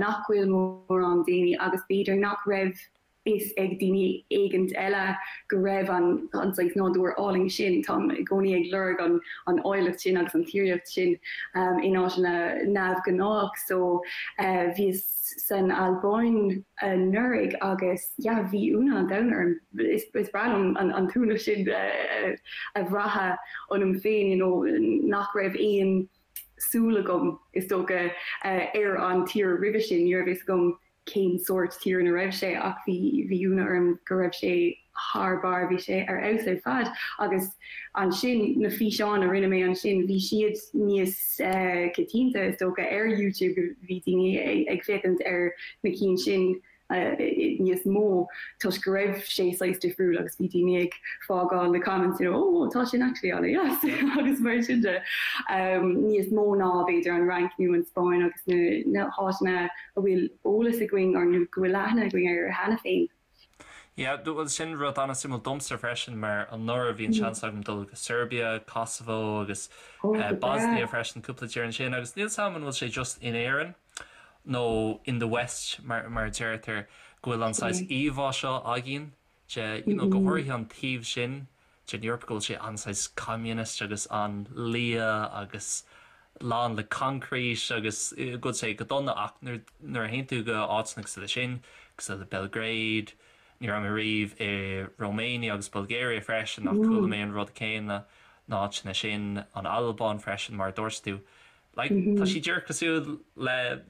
nach bhfuil mórán daoine agus b'fhéidir nach raibh fhios ag daoine éigint eile go raibh an an saghas nádúr álainn sin. Táim i gcónaí ag lorg an an áilleacht sin agus an tíreolaíocht sin in áiteanna neamhghnách. So bhíos san Albáin anuraidh agus yeah bhí ionadh an domhain orm. Is is breá liom an an t-ionadh sin a bhrath ionam féin you know nach raibh aon súil agam is dócha ar an tír roimhe sin. Ní raibh fhios agam cén sórt tír ina raibh sé ach bhí bhí ionadh orm go raibh sé thar barr, bhí sé ar fheabhas ar fad agus ansin na físeáin a rinne mé ansin bhí siad níos coitianta is dócha ar YouTube, bhí daoine ag féachaint ar na cinn sin níos mó toisc go raibh sé saghas difriúil agus bhí daoine ag fágáil na comments you know oh tá sin actually an-deas agus mar sin de. Níos mó ná b'fhéidir an Fhrainc nó an Spáinn agus na na háiteanna a bhfuil eolas againn nó go bhfuil aithne againn air cheana féin. Yeah, bhuel sin rud an-suimiúil domsa freisin mar anuraidh bhí an seans agam dul go Serbia, Kosovo agus Bosnia freisin, cúpla tír ansin agus níl 's a'm an bhfuil sé just in Éirinn nó in the West mar mar a deirtear go bhfuil an saghas íomhá seo againn de you know go háirithe an taobh sin den Eoraip go bhfuil sé an-saghas communist agus an-liath agus lán le concrete agus go bhfuil sé go dona ach nuair nuair a théann tú go áiteanna cosúil le sin, cosúil le Belgrade, ní raibh mé riamh i Romania agus Bulgaria freisin ach chuala mé an rud céanna, na áiteanna sin, an Albáin freisin mar a dúirt tú. Like tá siad díreach cosúil le,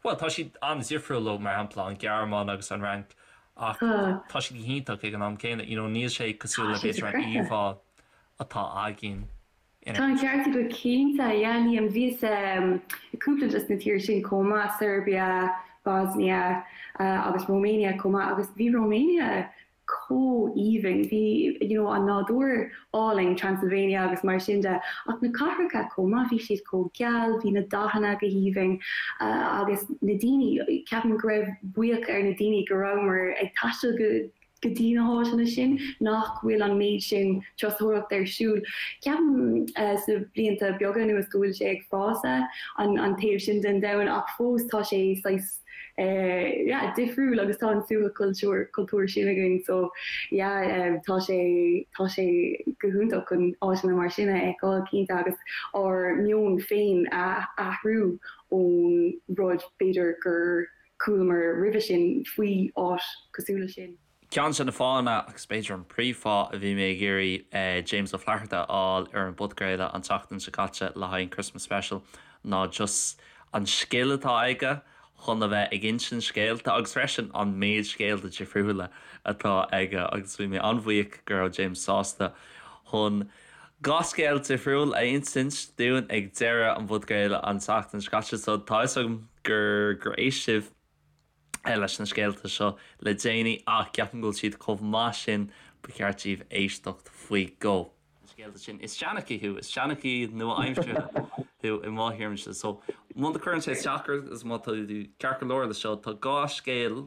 bhuel tá siad an-difriúil ó mar shampla an Ghearmáin agus an Fhrainc Ach tá siad go hiontach ag an am céanna, you know, níl sé cosúil le b'fhéidir an íomhá atá againn in Tá an ceart agat cinnte, yeah Liam, bhíos i cúpla de na tíortha sin chomh maith, Serbia, Bosnia agus Romania chomh maith agus bhí Romania chomh aoibhinn, bhí you know an nádúr álainn, Transylvania agus mar sin de, ach na cathracha chomh maith, bhí siad chomh geal, bhí na dathanna go haoibhinn agus na daoine, ceapaim go raibh buíoch ar na daoine go rabhamar ag taisteal go go dtí na háiteanna sin, nach bhfuil an méid sin turasóireacht ar siúl. Ceapaim sna blianta beaga anuas go bhfuil sé ag fás an an taobh sin den domhan ach fós tá sé saghas yeah difriúil agus tá an suaitheadh cultúr cultúr sin againn so yeah tá sé tá sé go hiontach chun áiteanna mar sin a fheiceáil cinnte agus ár meon féin a athrú ón rud b'fhéidir gur chualamar roimhe sin faoi áit cosúil leis sin. Ceann de na fáthanna, agus b'fhéidir an príomhfháth, a bhí mé ag iarraidh James Ó Flatharta a fháil ar an bpodchraoladh an tseachtain seo caite le haghaidh an Christmas Special ná just an scil atá aige chun a bheith ag insint scéalta agus freisin an méid scéalta difriúla atá aige agus bhí mé an-bhuíoch go raibh James sásta chun 2 scéal difriúil a insint dúinn ag deireadh an phodchraoladh an tseachtain seo caite so tá 'fhios agam. gur gur éist sibh leis na scéalta seo le déanaí ach ceapaim go bhfuil siad chomh maith sin ba cheart daoibh éisteacht faoi dhó. Na scéalta sin. Is seanchaí thú, is seanchaí nua-aimseartha thú i mo thuairimse. So muna gcuireann sé isteach ort is má tá tú ceart go leor leis seo, tá dhá scéal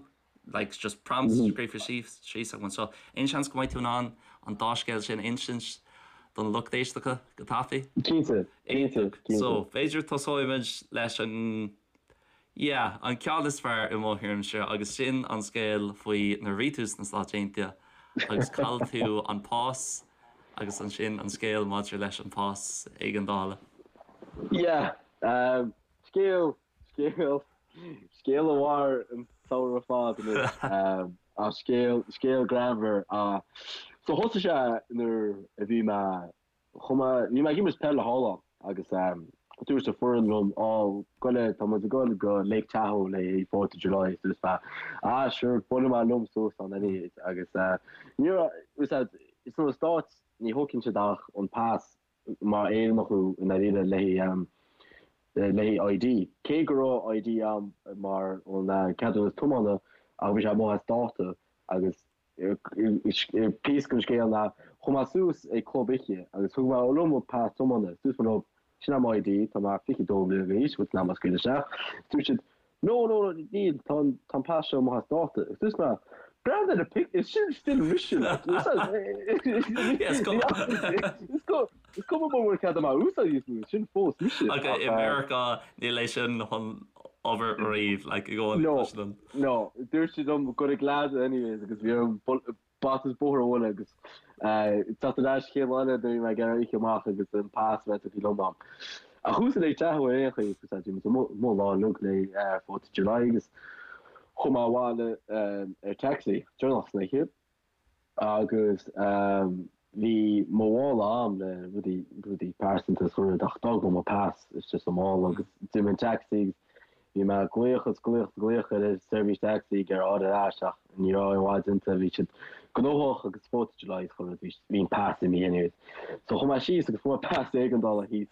like just prompts scríofa síos síos agam anseo. Aon seans go mbeidh tú in ann an dá scéal sin a insint don lucht éisteachta go tapaidh? Cinnte, cinnte, cinnte. So, b'fhéidir tosóimid leis an yeah, an ceann is fearr i mo thuairimse agus sin an scéal faoi nuair a bhí tú sna Stáit Aontaithe agus chaill tú an pas agus ansin an scéal maidir leis an pas éigeandála. Yeah, um, scéal Scéal, scéal a mhair an samhradh ar fad anois. Ach scéal, scéal greannmhar. So thosaigh sé nuair a bhí mé, chuaigh mé, bhí mé ag imirt peile thall ann agus dúirt an foireann liom, Á, goile, tá muid ag dul go Lake Tahoe le haghaidh Fourth of July. So dúirt mé, Ah, sure, buailfidh mé liom suas ann anyways. Agus ní raibh, sna Stáit ní thógann siad ach an pas mar Éireannach thú i ndáiríre le haghaidh ID. Cé go raibh ID a'm mar an ceadúnas tiomána ach bhí sé amuigh as dáta agus píosa den scéal ná chuaigh mé suas ag club oíche agus thug mé liom mo pas tiomána dúirt mé leo sin é mo ID tá mé 22 bliana d'aois bhfuil tú in ann mé a scaoileadh isteach. Dúirt siad No, no, no, níl, tá an, tá an pas seo amuigh as dáta. Agus dúirt mé, breathnaigh ar an pic, is sin still mise, like. Is cuma. Is cuma mura bhfuil cead agam a úsáid níos mó, sin fós mise. Ach i Meiriceá, níl é sin chun obair riamh, like, i gcónaí No, no, dúirt siad liom go raibh glad anyways agus bhí orm bata is bóthar a bhualadh agus teacht ar ais chéad lá eile nuair a bhí mé ag iarraidh oíche amach agus an pas a bheith tugtha liom a'm. Ach chuas go Lake Tahoe ar aon chaoi agus bhí muid amuigh lá uilig le Fourth of July agus chuaigh mé abhaile ar taxi deireanach san oíche agus bhí mo mhála a'm le rudaí rudaí pearsanta is chuile rud ach d'fhág mé mo pas istigh sa mhála agus d'imigh an taxi agus Bhí mé ag glaoch is glaoch is glaoch ar an seirbhís taxi ag iarraidh a fháil ar ais ach ní raibh aon mhaith déanta, bhí siad gnóthach agus Fourth of July is chuile rud, bhí an pas imithe anyways. So chuaigh mé síos agus fuair mé pas éigeandála thíos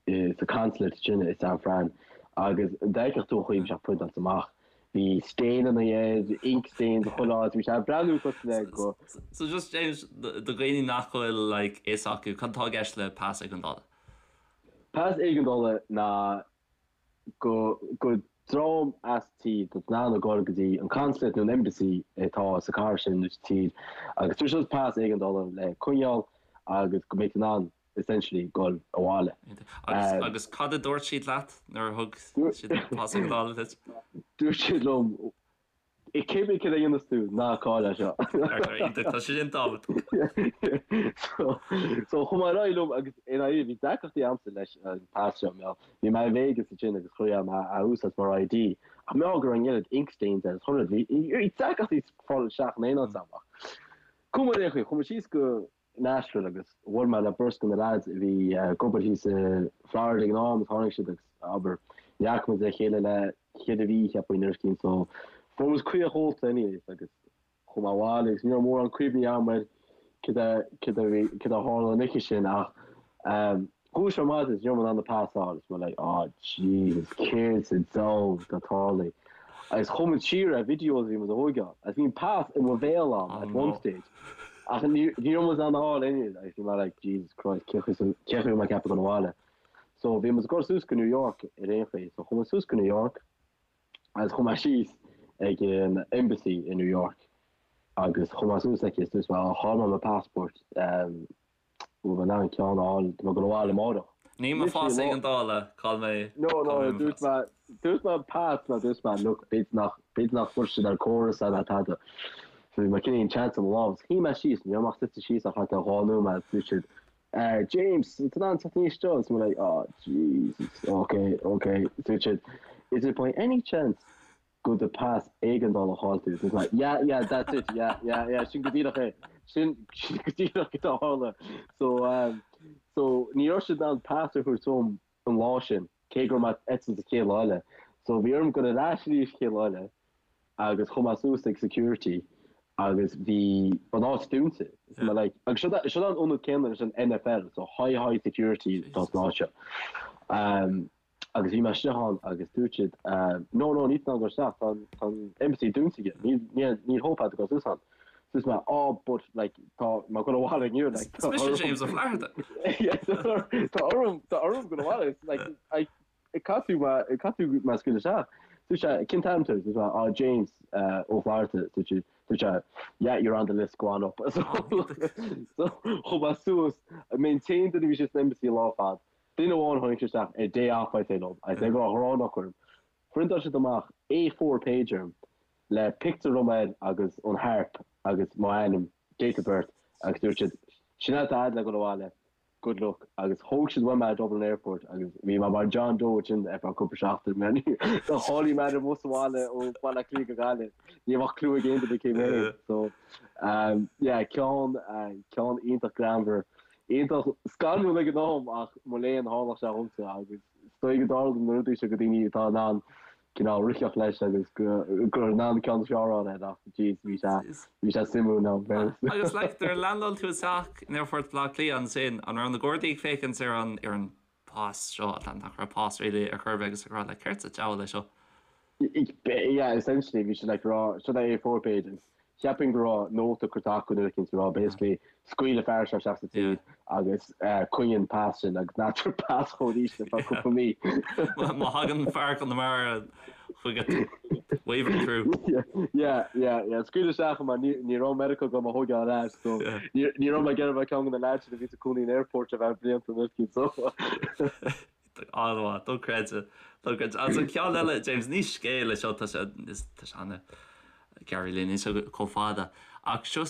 i sa consulate sin i San Fran agus dá bhfeicfeadh tú an chaoi a bhí sé priontáilte amach, bhí stainanna air, ink stains chuile áit, bhí sé ag breathnú cosúil le go. So just James, do dhaoine nach bhfuil like fhios acu, cad atá i gceist le pas éigeandála? Pas éigeandála ná go go dream as tír atá in ann a dhul go dtí an consulate nó an embassy atá sa chathair sin nó sa tír agus tabharfaidh siad pas éigeandála le coinneáil agus go mbeidh tú in ann essentially dul abhaile. Agus agus cad a dúirt siad leat nuair a thug siad an pas éigeandála duit? Dúirt siad liom Cibé cad a dhéanas tú, ná caill é seo. Tá sé sin tábhachtach. So, so chuaigh mé ar aghaidh liom agus i ndáiríre bhí deacrachtaí a'msa leis an pas seo, mar bhí mé i Vegas ansin agus chuaigh mé á úsáid mar ID ach mar go raibh an oiread ink stains air is chuile rud, bhí deacrachtaí fáil isteach in aon áit a'm ach chuaigh mé ar aon chaoi, chuaigh mé síos go Nashville agus bhuail mé le beirt de na lads a bhí ag obair thíos i Florida ag an am agus tháinig siad agus abair ní fhaca muid le chéile le ceithre mhí cheapfainn nó rud éicint so fuair muid caoch ólta anyways agus chuaigh mé abhaile agus ní raibh mórán cuimhní agam ar cad a cad a bhí cad a tharla an oíche sin ach ehm dhúisigh mé ar maidin agus ní raibh mé in ann an pas a fháil agus mé like oh Jesus céard sa diabhal atá tarlaithe agus chuaigh muid siar ar videos a bhí muid a thóigeáil agus bhí an pas i mo bhéal a'm at one stage Ach ní raibh muid in ann a fháil anyways agus bhí mé like Jesus Christ cén chaoi cén chaoi a raibh mé ag ceapadh dul abhaile. So bhí muid ag dul suas go New York ar aon chaoi. So chuaigh muid suas go New York agus chuaigh mé síos ag an embassy i New York agus chuaigh mé suas aici is dúirt mé oh chaill mé mo passport um, Bhfuil mé in ann ceann a fháil, tá mé ag dul abhaile amárach. Ní mo phas éigeandála, chaill mé, No, no, dúirt mé, dúirt mé pas, nó dúirt mé, look, b'fhéidir nach, b'fhéidir nach bhfuil siad ar córas é ná tada. So bhí mé cineál chance i mo lámh. Shuigh mé síos, ní raibh mé ach suite síos ach thart ar dhá nóiméad, dúirt siad, eh, James, an tú in ann teacht aníos anseo? Is mé like, oh, Jesus, okay, okay. Dúirt siad, is it by any chance go do pas éigeandála a chaill tú. It's like, yeah, yeah, that's it, yeah, yeah, yeah, sin go díreach é. Sin, sin go díreach cad a tharla. So, um, so ní raibh siad in ann pas a thabhairt dom an lá sin, cé go raibh mé ag eitilt an chéad lá eile. So bhí orm dul ar ais arís chéad lá eile agus chuaigh mé suas ag security agus bhí an áit dúnta. Is mé like, agus seo seo an ionad céanna leis an NFL, so high, high security atá san áit seo. Um, Agus bhí mé istigh ann agus dúirt siad no no níl tú in ann dul isteach tá tá an embassy dúnta aige níl níl níl hope agat dul suas ann. Dúirt mé oh but like tá mé ag dul abhaile inniu like Is mise James Ó Flatharta. Yeah tá orm tá orm dul abhaile it's like I caithfidh tú mé caithfidh tú mé a scaoileadh isteach. Dúirt sé cén t-ainm tú? Dúirt mé oh James Ó Flatharta dúirt siad dúirt sé yeah you're on the list go on up. So so chuaigh mé suas mé an t-aon duine a bhí istigh san embassy an lá ar fad. Duine amháin tháinig sé isteach ar day off I'd say liom I'd say go raibh ghrán acu orm. Phriontáil siad amach A4 page orm le pictiúr dom air agus an harp agus mo ainm, date of birth agus dúirt siad sin é atá a'd le dul abhaile, good luck agus thóg siad uaim mé i Dublin Airport agus bhí mé mar John Doe ansin ar feadh cúpla seachtain mar do cháiligh mé ar an mbus abhaile ó Bhaile Átha Cliath go Gaillimh ní bheadh clue ag aon duine cé mé so yeah ceann ceann iontach greannmhar Iontach scanrúil ag an am ach mo léan tharlódh sé dhomsa agus is dóigh go dtarlaíonn na rudaí seo go daoine atá in ann cineál ritheacht leis agus gur in ann ceann is fearr a fháil air ach jeez bhí sé bhí sé suimiúil in fairness. Agus like nuair a landáil tú isteach in Aerfort Bhaile Átha Cliath ansin an raibh na Gardaí ag féachaint ar an ar an pas seo nach raibh pas really ar chor ar bith agus ag rá like céard sa diabhal é seo? Yeah, essentially bhí siad like rá seo é A4 page agus cheapfainn go raibh nóta curtha acu nuair eicínt ag rá basically scaoil an fear seo isteach sa tír agus coinnigh an pas sin agus ná tabhair pas dhó arís ar feadh cúpla mí. Má thagann fear Chonamara chugat wave him through. Yeah, yeah, yeah. Scaoil isteach mar ní ní raibh Meiriceá agam a thógáil ar ais so ní ní raibh mé ag iarraidh bheith ceann de na lads sin a bhí ina gcónaí in airport ar feadh blianta nuair eicínt so. An-mhaith, dochreidte, dochreidte. Agus an ceann eile, James, ní scéal é seo, tá sé, tá sé an-ghearr really, níl sé chomh fada. Ach seo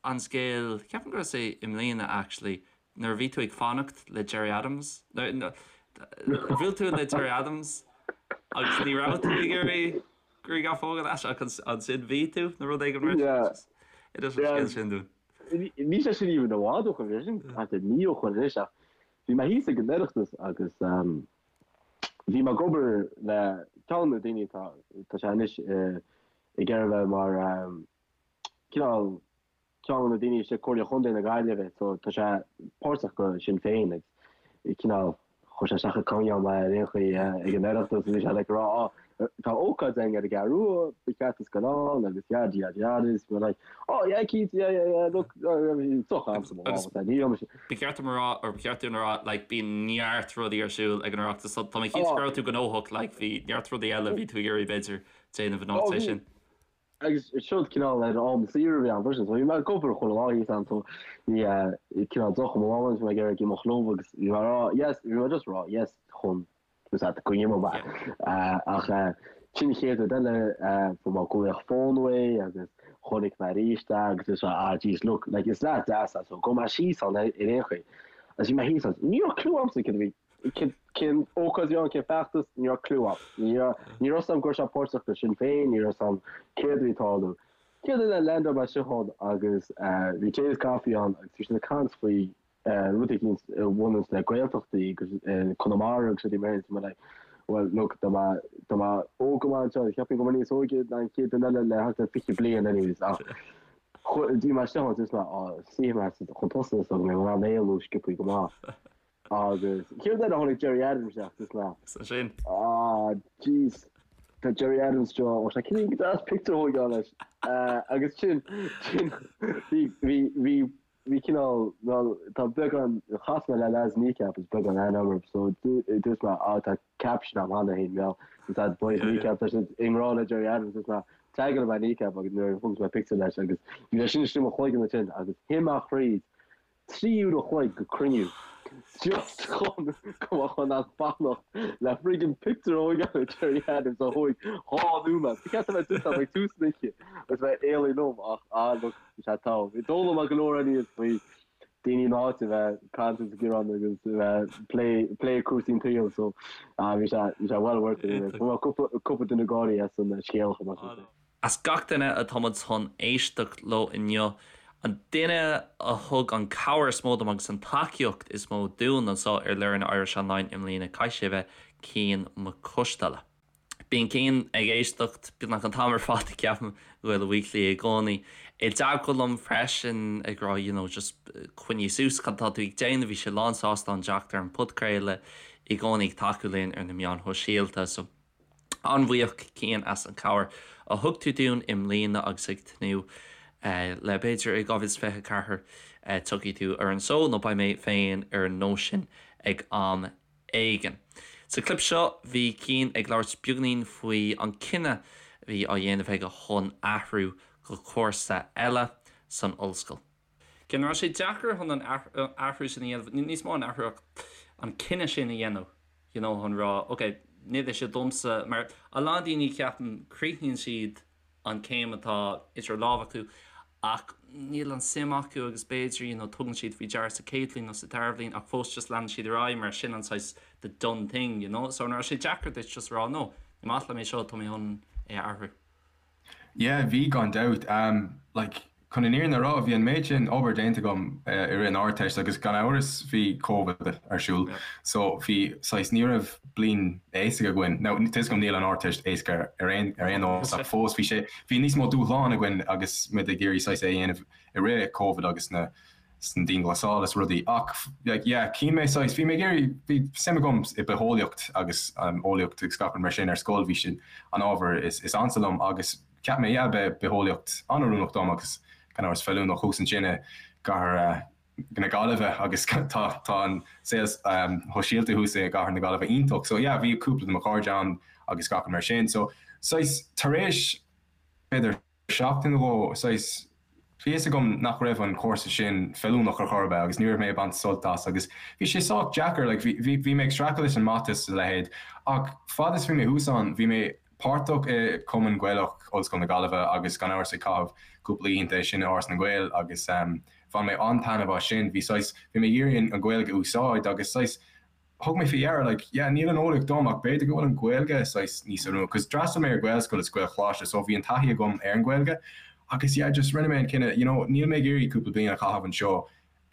an scéal, ceapaim go raibh sé i mbliana actually, nuair a bhí tú ag fanacht le Gerry Adams, bhuail tú le Gerry Adams agus ní raibh tú ag iarraidh grianghraf a thógáil leis ach ansin bhí tú nó rud éigin mar sin. Inis an scéal sin dúinn. Níl sé sin even i bhfad ó shin, bhí sé sin thart ar mí ó shin anois ach Bhí mé thíos ag an Oireachtas agus bhí mé ag obair le ceann de na daoine atá, tá sé anois ag iarraidh bheith mar cineál ceann de na daoine istigh Comhairle Chontae na Gaillimhe so tá sé páirteach go Sinn Féin agus cineál chuir sé isteach ag coinneáil mé ar aon chaoi ag an Oireachtas bhí sé like ag rá á tá ócáid againn ar an gCeathrú Rua, ba cheart duit gabháil ann agus yada yada yada is mé like oh yeah cinnte yeah yeah yeah look soch am sa mo lámh ní raibh mise Ba cheart dom a rá, or ba cheart dúinn a rá, like bíonn neart rudaí ar siúl ag an Oireachtas so tá mé cinnte go raibh tú gnóthach, like bhí neart rudaí eile a bhí tú ag iarraidh b'fhéidir déanamh in áit é sin. Agus seo cineál ar am saoire a bhí ann freisin so bhí mé ag obair chuile lá thíos ann so bhí cineál deoch i mo lámh agus bhí mé ag iarraidh imeacht liom agus bhí mé ag rá yes, bhí mé just ag rá yes chun Is ea, go ndéanfaidh mé. Ach sin an chéad rud eile, fuair mé glaoch fóin uaidh agus chonaic mé arís é agus dúirt sé, ah jeez, look, like is leaid deas é so gabhfaidh mé síos ann ar aon chaoi. Agus bhí mé thíos ann, ní raibh clue a'msa céard a bhí, cén ócáid a bhí ann, cén feachtas, ní raibh clue a'm. Ní raibh, ní raibh 'fhios a'm go raibh sé páirteach do Sinn Féin, ní raibh 'fhios a'm céard a bhí ag tarlú. Céad rud eile, landáil mé isteach ann agus bhí James Coffey ann agus bhí siad ag caint faoi rud éicint a bhaineanns le Gaeltachtaí agus Conamara agus rudaí mar sin, so mé like well look tá mé tá mé óg go maith anseo, cheapfainn go bhfuil mé níos óige ná an chéad duine eile le thart ar 20 bliain anyways ach bhí mé istigh ann just mé á suífidh mé chun tosaigh so go mbeidh mé in ann éalú sciobthaí go maith agus chéad rud eile tháinig Gerry Adams isteach just mé sin ah jeez tá Gerry Adams seo ó sé cén go deas pictiúr a thógáil leis agus sin sin bhí bhí bhí Bhí cineál, bhuel, tá beagán, chas mé le lads Kneecap is beagán aithne agam orthu so dúirt mé ah tá caption agam cheana féin, bhuel, is that boys Kneecap, tá siad i ngrá le Gerry Adams, dúirt mé tagáil mé Kneecap agus nuair a thóg mé pictiúr leis agus bhí sé sin istigh i mo chloigeann ansin agus shuigh mé thríd 3 uair a chloig go cruinniú just chun go mbeadh in ann fanacht le friggin pictiúr a thógáil le Gerry Adams a thóg dhá nóiméad. Ba cheart a bheith dúirt ag tús an oíche agus bheith éalaigh liom ach ah look Bhí sé togha. Bhí d'fhoghlaim mé go leor aníos faoi daoine na háite a bheith ag caint agus ag gearán agus a bheith plé plé cúrsaí an tsaoil so bhí sé bhí sé well worth it anyway. Fuair mé cúpla cúpla duine ag gáirí as an scéal chomh maith sin. As gach duine atá muid chun éisteacht leo inniu, an duine a thug an cabhair is mó dom agus an tacaíocht is mó dúinn anseo ar Learn Irish Online i mbliana, caithfidh sé a bheith Cian Mac Coisteala. Bíonn Cian ag éisteacht beagnach an t-am ar fad, ceapaim, go Gaeilge Weekly i gcónaí. I dteagmháil liom freisin ag rá you know just coinnigh suas cad atá tú ag déanamh, bhí sé lán sásta an teacht ar an podchraoladh. i gcónaí ag tacú linn ar na meáin shóisialta. So an-bhuíoch Cian as an cabhair a thug tú dúinn i mbliana agus ag tnúth le b'fhéidir i 2024 tiocfaidh tú ar an seó nó beidh mé féin ar an nós sin ag am éigin. Sa clip seo bhí Cian ag labhairt beagáinín faoi an cinneadh a bhí á dhéanamh aige chun athrú go cúrsa eile san ollscoil. Cian, an raibh sé deacair chun an athrú sin a dhéanamh, níos mó an athrú ach an cinneadh sin a dhéanamh you know chun rá ok níl é seo domsa mar a lán daoine ceapaim críochnaíonn siad an céim atá idir lámha acu ach níl an suim acu agus b'fhéidir you know tugann siad faoi deara sa chéad bhliain nó sa dara bhliain ach fós just leanann siad ar aghaidh mar sin an saghas the done thing you know so an raibh sé deacair duit just rá no ní maith liom é seo tá mé chun é a athrú. Yeah, bhí gan dabht. Like, chun an fhírinne a rá, bhí an méid sin obair déanta agam i rith an Ardteist agus gan amhras bhí Covid ar siúl so bhí saghas, ní raibh bliain éasca againn. Now, tá 'fhios agam níl an Ardteist éasca ar aon ar aon nós ach fós bhí sé, bhí níos mó dúshlán againn agus muid ag iarraidh saghas é a dhéanamh i rith Covid agus na san dianghlasáil is rudaí ach like yeah chinn mé saghas bhí mé ag iarraidh bhí suim agam i bitheolaíocht agus um, eolaíocht agus gach rud mar sin ar scoil bhí sin an ábhar is, is ansa liom agus cheap mé yeah beidh bitheolaíocht an-oiriúnach dom agus gan amhras feiliúnach thuas ansin i gcathair uh, na Gaillimhe agus tá tá an saol um, sóisialta thuas i gcathair na Gaillimhe iontach so yeah bhí cúpla de mo chairde ann agus gach rud mar sin so saghas tar éis b'fhéidir seachtain nó dhó, saghas, bhí fhios agam nach raibh an cúrsa sin feiliúnach ar chor ar bith agus ní raibh mé ag baint sult as agus bhí sé sách deacair, like, bhí, bhí, bhí mé ag streachailt leis an mata is a leithéid ach fad is bhí mé thuas ann, bhí mé páirteach i Cumann Gaelach Ollscoil na Gaillimhe agus gan amhras ag caitheamh cúpla oícheanta ansin i Áras na nGael agus bhain mé an-taitneamh as sin, bhí saghas, bhí mé ag iarraidh an Ghaeilge a úsáid agus saghas, thug mé faoi deara, like, yeah, níl an eolaíocht dom ach b'fhéidir go bhfuil an Ghaeilge saghas níos oiriúnaí, cos d'fhreastail mé ar Ghaelscoil is Gaelcholáiste so bhí an taithí agam ar an Ghaeilge agus yeah, just rinne mé an cinneadh, you know, níl mé ag iarraidh cúpla bliain a chaitheamh anseo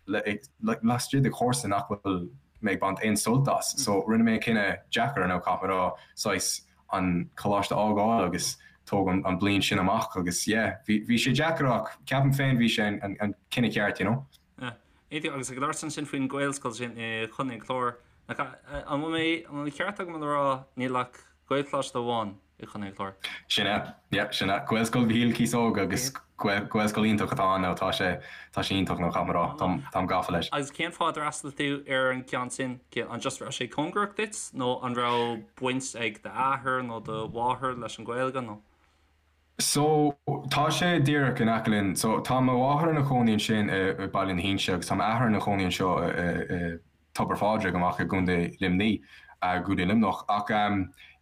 le, like, laistigh de chúrsa nach bhfuil mé ag baint aon sult as. So rinne mé an cinneadh deacair, now caithfidh mé a rá, saghas an coláiste a fhágáil agus tóg an, an bliain sin amach agus yeah, bhí, bhí sé deacair ach ceapaim féin bhí sé an, an, an cinneadh ceart, you know. Yeah. Agus ag labhairt ansin faoin Ghaelscoil sin i Chontae an Chláir, nach an bhfuil mé, an bhfuil an ceart agam le rá níl ach Gaelcholáiste amháin i Chontae an Chláir? Sin é, yeah, sin é. Gaelscoil Mhichíl Cíosóg agus Gaelscoil iontach atá ann now, tá sé, tá sé iontach now, caithfidh mé a rá, táim, táim gafa leis. Agus cén fáth ar fhreastail tú ar an gceann sin? An just raibh sé cóngarach duit nó an raibh baint ag d'athair nó do mháthair leis an Ghaeilge nó? So, tá sé díreach in aice linn. So, tá mo mháthair ina cónaí ansin i Baile na hInse agus tá m'athair ina chónaí anseo i Tobar Phádraig amach i gContae Luimní, gContae Luimneach. Ach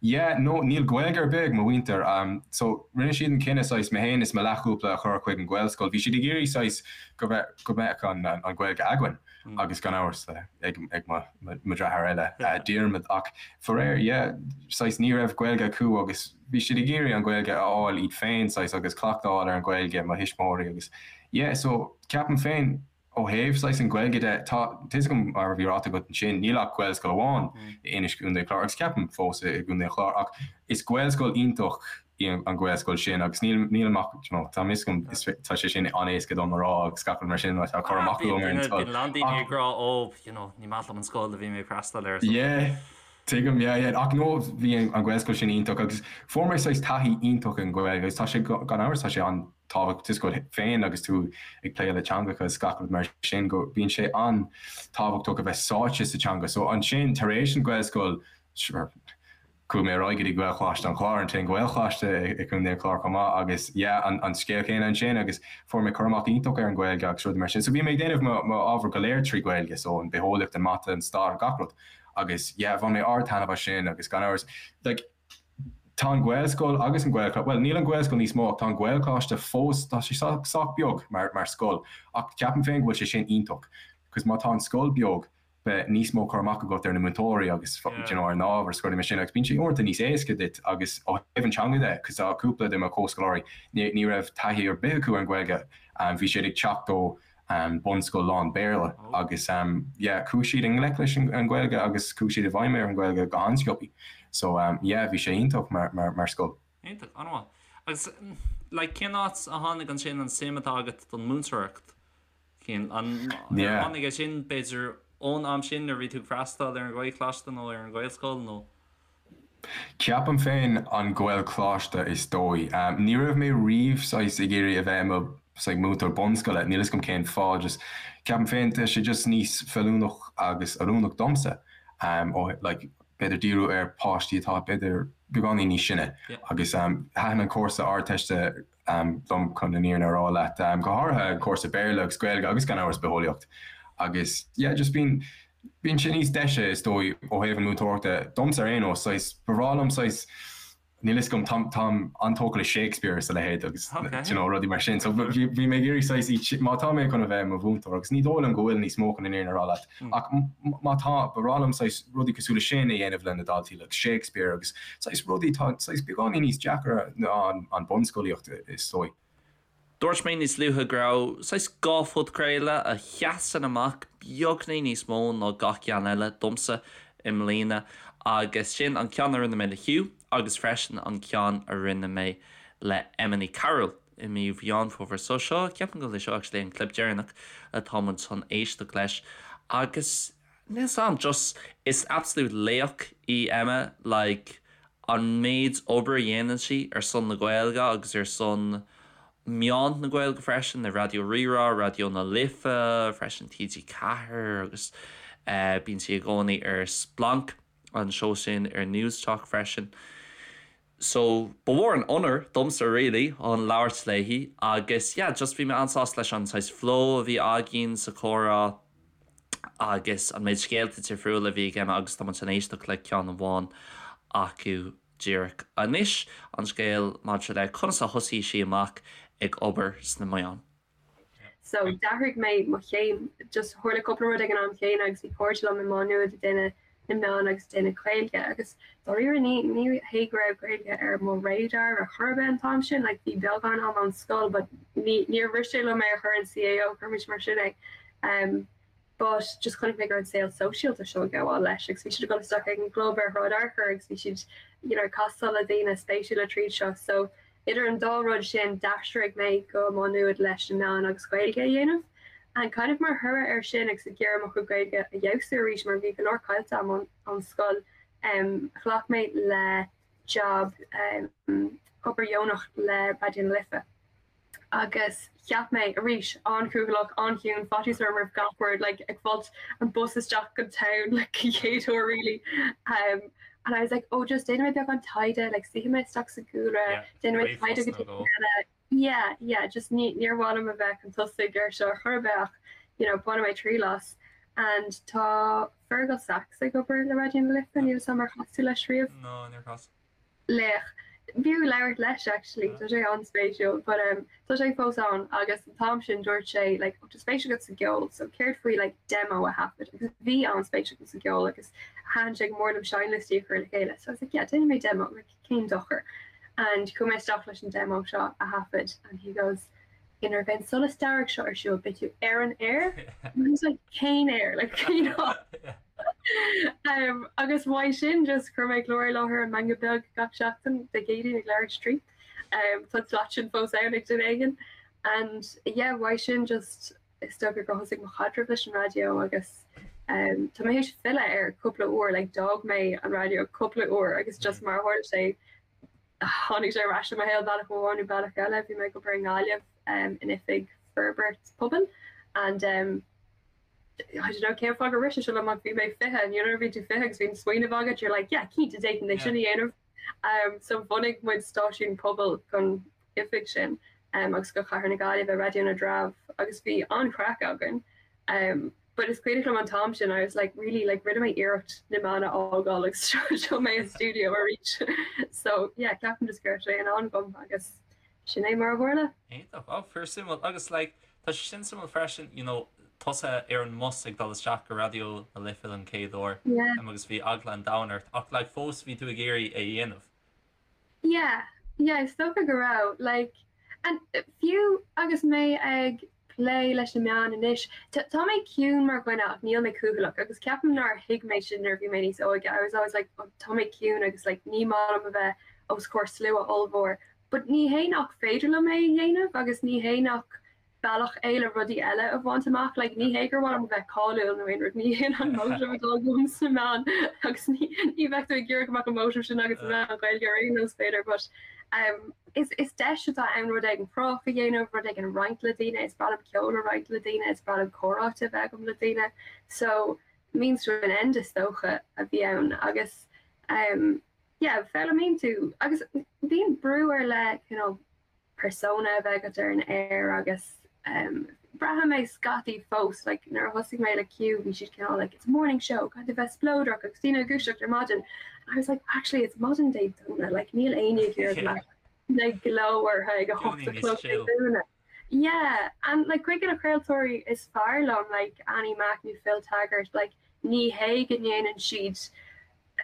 yeah, no, níl Gaeilge ar bith ag mo mhuintir. So, rinne siad an cinneadh saghas mé féin is mo leathchúpla a chur chuig an Ghaelscoil. Bhí siad ag iarraidh saghas go mbeadh go mbeadh an an Ghaeilge againn agus gan amhras ag ag mo mo dheartháir eile, Diarmaid. Ach faraor, yeah, saghas ní raibh Gaeilge acu agus bhí siad ag iarraidh an Ghaeilge a fháil iad féin, saghas, agus cleachtadh a fháil ar an Ghaeilge, mo thuismitheoirí agus yeah, so ceapaim féin ó thaobh saghas an Ghaeilge de, tá fhios agam mar a bhí ráite agat ansin, níl ach Gaelscoil amháin i Inis gContae an Chláir agus ceapaim fós i gContae an Chláir ach is Gaelscoil iontach í an Ghaelscoil sin agus níl nílim ach you know tá fhios agam is tá sé sin an-éasca dom a rá agus gach rud mar sin mar tá cur amach agam ar an scoil. Bíonn a lán daoine ag rá ó you know ní maith liom an scoil a bhí mé ag freastal air. Yeah. Tuigim, yeah, yeah. Ach no, bhí an Ghaelscoil sin iontach agus fuair mé saghas taithí iontach an Ghaeilge agus tá sé, gan amhras, tá sé an-tábhachtach tá fhios agat féin agus tú ag plé le teangacha is gach rud mar sin go bíonn sé an-tábhachtach a bheith sáite sa teanga. So ansin, tar éis an Ghaelscoil, sure, chuaigh mé ar aghaidh go dtí Gaelcholáiste an Chláir, an t-aon Ghaelcholáiste i gContae an Chláir chomh maith agus yeah, an an scéal céanna ansin agus fuair mé cur amach iontach ar an Ghaeilge agus rudaí mar sin. So bhí mé ag déanamh mo mo ábhar go léir trí Ghaeilge, so an bitheolaíocht, an mata, an stair, gach rud. Agus yeah, bhain mé ard-taitneamh as sin agus gan amhras, like, tá an Ghaelscoil agus an Gaelcholáiste, bhuel, níl an Ghaelscoil níos mó ach tá an Gaelcholáiste fós, tá sé sách beag mar, mar scoil ach ceapaim féin go bhfuil sé sin iontach cos má tá an scoil beag, beidh níos mó cur amach agat ar na múinteoirí agus you know, ar an ábhar is rudaí mar sin agus bíonn sé uaireanta níos éasca duit agus ó thaobh an teanga de, cos tá cúpla de mo chomhscoláirí, ní, ní raibh taithí ar bith acu ar an Ghaeilge, bhí siad ag teacht ó bunscoil lán Béarla agus yeah chuaigh siad i ngleic leis an Ghaeilge agus chuaigh siad i bhfeidhm ar an Ghaeilge go han-sciobtha. So yeah bhí sé iontach mar mar mar scoil. Iontach, an-mhaith. Agus like cén áit a tháinig ansin an suim atá agat don múinteoireacht? Cén, an, ar tháinig é sin b'fhéidir. ón am sin nuair a bhí tú ag freastal ar an Ghaelcholáiste nó ar an Ghaelscoil nó? Ceapaim féin an Gaelcholáiste is dóigh. Ní raibh mé riamh saghas ag iarraidh a bheith i mo saghas múinteoir bunscoile, níl 'fhios agam cén fáth, just ceapaim féin tá sé just níos feiliúnach agus oiriúnach domsa ó like b'fhéidir díriú ar páistí atá b'fhéidir beagáinín níos sine agus thaitin an cúrsa Ardteiste liom chun an fhírinne a rá leat, go háirithe an cúrsa Béarla agus Gaeilge agus gan amhras Bitheolaíocht agus yeah just bíonn bíonn sé níos deise is dóigh ó thaobh an múinteoireachta domsa ar aon nós saghas ba bhreá liom saghas níl 'fhios agam táim táim an-tógtha le Shakespeare is a leithéid agus you know rudaí mar sin so bhí bhí mé ag iarraidh saghas iad má tá mé chun a bheith i mo mhúinteoir agus ní dóigh liom go bhfuil níos mó chun an fhírinne a rá leat ach má tá ba bhreá liom saghas rudaí cosúil le sin a dhéanamh le na daltaí like Shakespeare agus saghas rudaí atá saghas beagáinín níos deacra ná an bunscolaíocht is dóigh. Dúirt mé níos luaithe go raibh saghas dhá phodchraoladh a sheasann amach beagní níos mó ná gach ceann eile domsa i mbliana agus sin an ceann a rinne mé le Hugh agus freisin an ceann a rinne mé le Emma Ní Chearúil i mí Mheán Fómhair. So seo, ceapaim go bhfuil é seo actually an clip deireanach atá muid chun éisteacht leis agus Níl 'fhios a'm, just is absolute laoch í Emma, like an méid obair a dhéanann sí ar son na Gaeilge agus ar son meáin na Gaeilge freisin, le Raidió Rí-Rá, Raidió na Life, freisin TG4 agus bíonn sí i gcónaí ar Splanc, an seó sin ar Newstalk freisin. So ba mhór an onóir domsa really chun labhairt léi agus yeah just bhí mé an-sásta leis an saghas flow a bhí againn sa chomhrá agus an méid scéalta difriúla a bhí ag Emma agus tá muid chun éisteacht le ceann amháin acu díreach anois, an scéal maidir le conas a thosaigh sí amach ag obair sna meáin. So d'athraigh mé mo chéim, just tharla cúpla rud ag an am chéanna agus bhí cairde liom i Má Nuad ag déanamh na meán agus ag déanamh Gaeilge agus dáiríre ní ní hé go raibh Gaeilge ar mo radar ar chor ar bith an t-am sin, like bhí beagán am ón scoil but ní níor bhris sé liom é a chur in CAO, cuirimis mar sin é. Um, but just chonaic mé go raibh an saol sóisialta seo ag gabháil leis agus bhí siad ag dul isteach ag an gclub ar Shráid Fhearchair agus bhí siad you know ag castáil le daoine spéisiúla tríd seo so idir an dá rud sin d'aistrigh mé go Má Nuad leis na meáin agus Gaeilge a dhéanamh and kind of mar thoradh air sin agus ag iarraidh mo chuid Gaeilge a fheabhsú arís mar bhí go leor caillte agam ón scoil um ghlac mé le job um obair dheonach le Raidió na Life. Agus cheap mé, arís, an-chúthaileach, an-chiúin, faitíos orm roimh gach rud, like, ag fáilt an bus isteach go town, like, an chéad uair really. Um, and I was like, oh, just déanfaidh mé beagán taighde, like, suífidh mé isteach sa gcúlra, Yeah, déanfaidh mé taighde go dtí eile. Yeah, yeah, just ní, níor mhaith liom a bheith chun tosaigh ar seo ar chor ar bith ach, you know, bainfidh mé triail as. And tá Fergal Sachs ag obair le Raidió na Life, níl 'fhios a'm ar chas tú leis riamh? No, níor chas. Laoch. B'fhiú labhairt leis actually, tá sé an-spéisiúil but um tá sé fós ann agus an t-am sin dúirt sé like oh tá spéis agat sa gceol so céard faoi like demo a thaifead agus bhí an-spéis agam sa gceol agus thaitin sé go mór liom seinnliostaí a chur le chéile so I was like yeah déanfaidh mé demo like cén dochar and chuaigh mé isteach leis an demo seo a thaifead and he goes nuair a bheidh an solas dearg seo ar siúl beidh tú ar an aer and I was like cén aer like you know um, agus uaidh sin just chuir mé clár i láthair an Meangadh Beag gach seachtain Dé Céadaoin ag leathuair tar éis a 3. Um, tá slot sin fós ann ag duine éigin. And yeah, uaidh sin just is dócha gur thosaigh mo chaidreamh leis an raidió agus um, tá mé théis filleadh air cúpla uair, like d'fhág mé an raidió cúpla uair agus just mar a tharla sé tháinig sé ar ais i mo shaol bealach amháin nó bealach eile. Bhí mé ag obair i nGaillimh um, in oifig forbairt pobail and um, I don't know cén fáth gur rith sé seo liom ach bhí mé 20 and you know nuair a bhíonn tú 20 agus bíonn smaoineamh agat you're like yeah cinnte d'fhéadfainn é sin a dhéanamh. Um, so bhunaigh muid stáisiún pobail don oifig sin um, agus go Chathair na Gaillimhe Raidió na dTreabh agus bhí an-chraic againn. Um, but is cuimhin liom an t-am sin I was like really like rinne mé iarracht na meáin a fhágáil agus seo mé i studio arís. So yeah ceapaim just go raibh sé in am agam agus Sin é mar a tharla. Iontach. Oh, fíor suimiúil. Agus like, tá sé sin suimiúil freisin, you know, tusa ar an mbus ag dul isteach go Raidió na Life don chéad uair Yeah. um, agus bhí eagla an domhain ort ach like fós bhí tú ag iarraidh é a dhéanamh. Yeah, yeah, is dócha go raibh. Like, and fiú agus mé ag plé leis na meáin anois, tá mé ciúin mar dhuine ach níl mé cúthaileach agus ceapaim nár thuig mé sin nuair a bhí mé níos óige. I was always like, oh, tá mé ciúin agus like ní maith liom a bheith os comhair slua ollmhór. But ní hé nach féidir liom é a dhéanamh agus ní hé nach. bealach é le rudaí eile a bhaint amach. Like, ní hé gur mhaith liom a bheith cáiliúil nó aon rud, ní hin an motive atá agam sna meáin agus ní ní bheadh tú ag iarraidh go mbeadh an motive sin agat sna meáin Ghaeilge ar aon nós b'fhéidir, but um, is, is deis atá ann rud éigin cruthaitheach a dhéanamh, rud éigin a roinnt le daoine, is breá liom ceol a roinnt le daoine, is breá liom comhráite a bheith agam le daoine. So means to an end is dócha a bhí ann agus um, yeah, foghlaimíonn tú agus bíonn brú ar leith you know, persona a bheith agat ar an aer agus um, braithim é scaití fós like, nuair a thosaigh mé le Q bhí siad cineál like, it's a morning show caithfidh tú bheith spleodrach agus daoine ag dúiseacht ar maidin and I was like actually it's maidin Dé Domhnaigh like níl éinne ag iarraidh like, like glao orthu ag a hocht a chlog Dé Domhnaigh. Yeah and like cuid de na craoltóirí is fearr liom like Annie Mac nó Phil Taggart like ní hé go ndéanann siad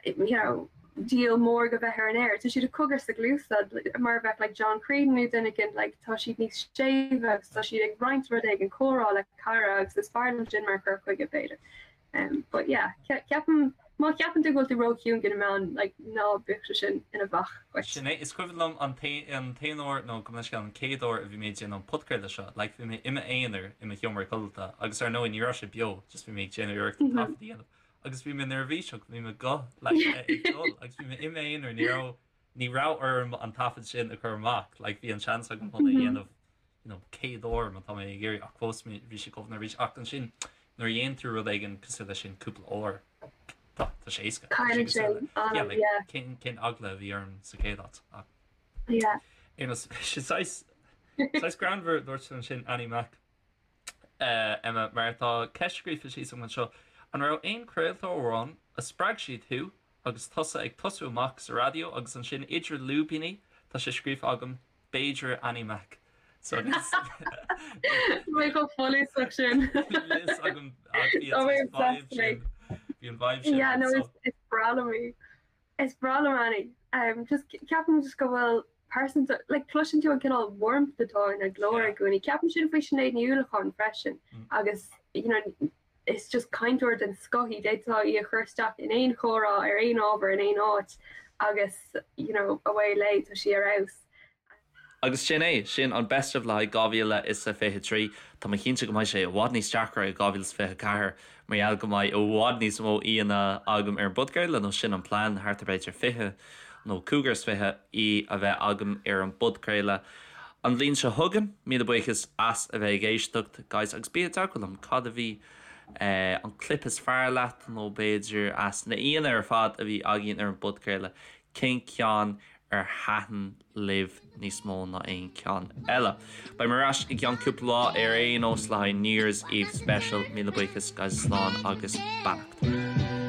you know, díol mór de bheith ar an aer. Tá siad ag cogar sna cluasa mar a bheadh like John Creedon nó duine éigin like tá siad níos séimhe agus tá siad ag roinnt rud éigin comhrá le cara agus is fearr liom sin mar chur chuige b'fhéidir. Um, but yeah, ceapaim má cheapann tú go bhfuil tú róchiúin do na meáin like ná bíodh sé sin ina bhac dhuit. Sin é, is cuimhin liom an t-aon uair nó gabh mo leithscéal an chéad uair a bhí mé ag déanamh an podchraoladh seo, like bhí mé i m'aonar i mo sheomra codlata agus ar ndóigh ní raibh sé beo, just bhí mé ag déanamh iarracht an taifead a dhéanamh. agus bhí mé neirbhíseach, bhí mo ghuth like ag dul agus bhí mé i m'aonar, ní raibh ní raibh orm an taifead sin a chur amach, like bhí an seans agam chun é a dhéanamh you know 100 uair má tá mé ag iarraidh ach fós bhí sé chomh neirbhíseach ach ansin nuair a dhéanann tú rud éigin cosúil leis sin cúpla uair tá tá sé éasca. Tá sé Cailleann sé cosúil le yeah anam like yeah. cén cén eagla a bhí orm sa chéad áit ach Yeah. ar aon nós sé saghas saghas greannmhar dúirt tú ansin Annie Mac. Emma, mar tá ceist scríofa síos agam anseo, an raibh aon chraoltóir amháin a spreag siad thú agus tusa ag tosú amach sa raidió agus ansin idir lúibíní tá sé scríofa agam b'fhéidir Annie Mac so Tá mé chomh folúsach sin. Níl a fhios agam ach bhí an vibe sin bhí an vibe sin Yeah, no, is is breá liom í. Is breá liom Annie. Um, just ceapaim just go bhfuil pearsanta, like cloiseann tú an cineál warmth atá ina glór i gcónaí. Ceapaim sin faoi Sinéad Ní Uallacháin freisin agus you know is just cainteoir den scoth í, d'fhéadfá í a chur isteach in aon chomhrá ar aon ábhar in aon áit agus you know away léi, tá sí ar fheabhas. Agus sin é, sin an Best of le haghaidh 2023. Tá mé cinnte go mbeidh sé i bhfad níos deacra i 2024 mar gheall go mbeidh i bhfad níos mó aíonna agam ar an bpodchraoladh, nó sin an plean, thart ar b'fhéidir 20 nó cúigear is fiche aoi a bheith agam ar an bpodchraoladh an bhliain seo chugainn. Míle buíochas as a bheith ag éisteacht, guys, agus bí i dteagmháil liom, cad a bhí an clip is fearr leat nó b'fhéidir as na aíonna ar fad a bhí againn ar an bpodchraoladh, cén ceann ar thaitin libh níos mó ná aon cheann eile. Beidh mé ar ais i gceann cúpla lá ar aon nós le haghaidh New Year's Eve Special. Míle buíochas guys slán agus beannacht.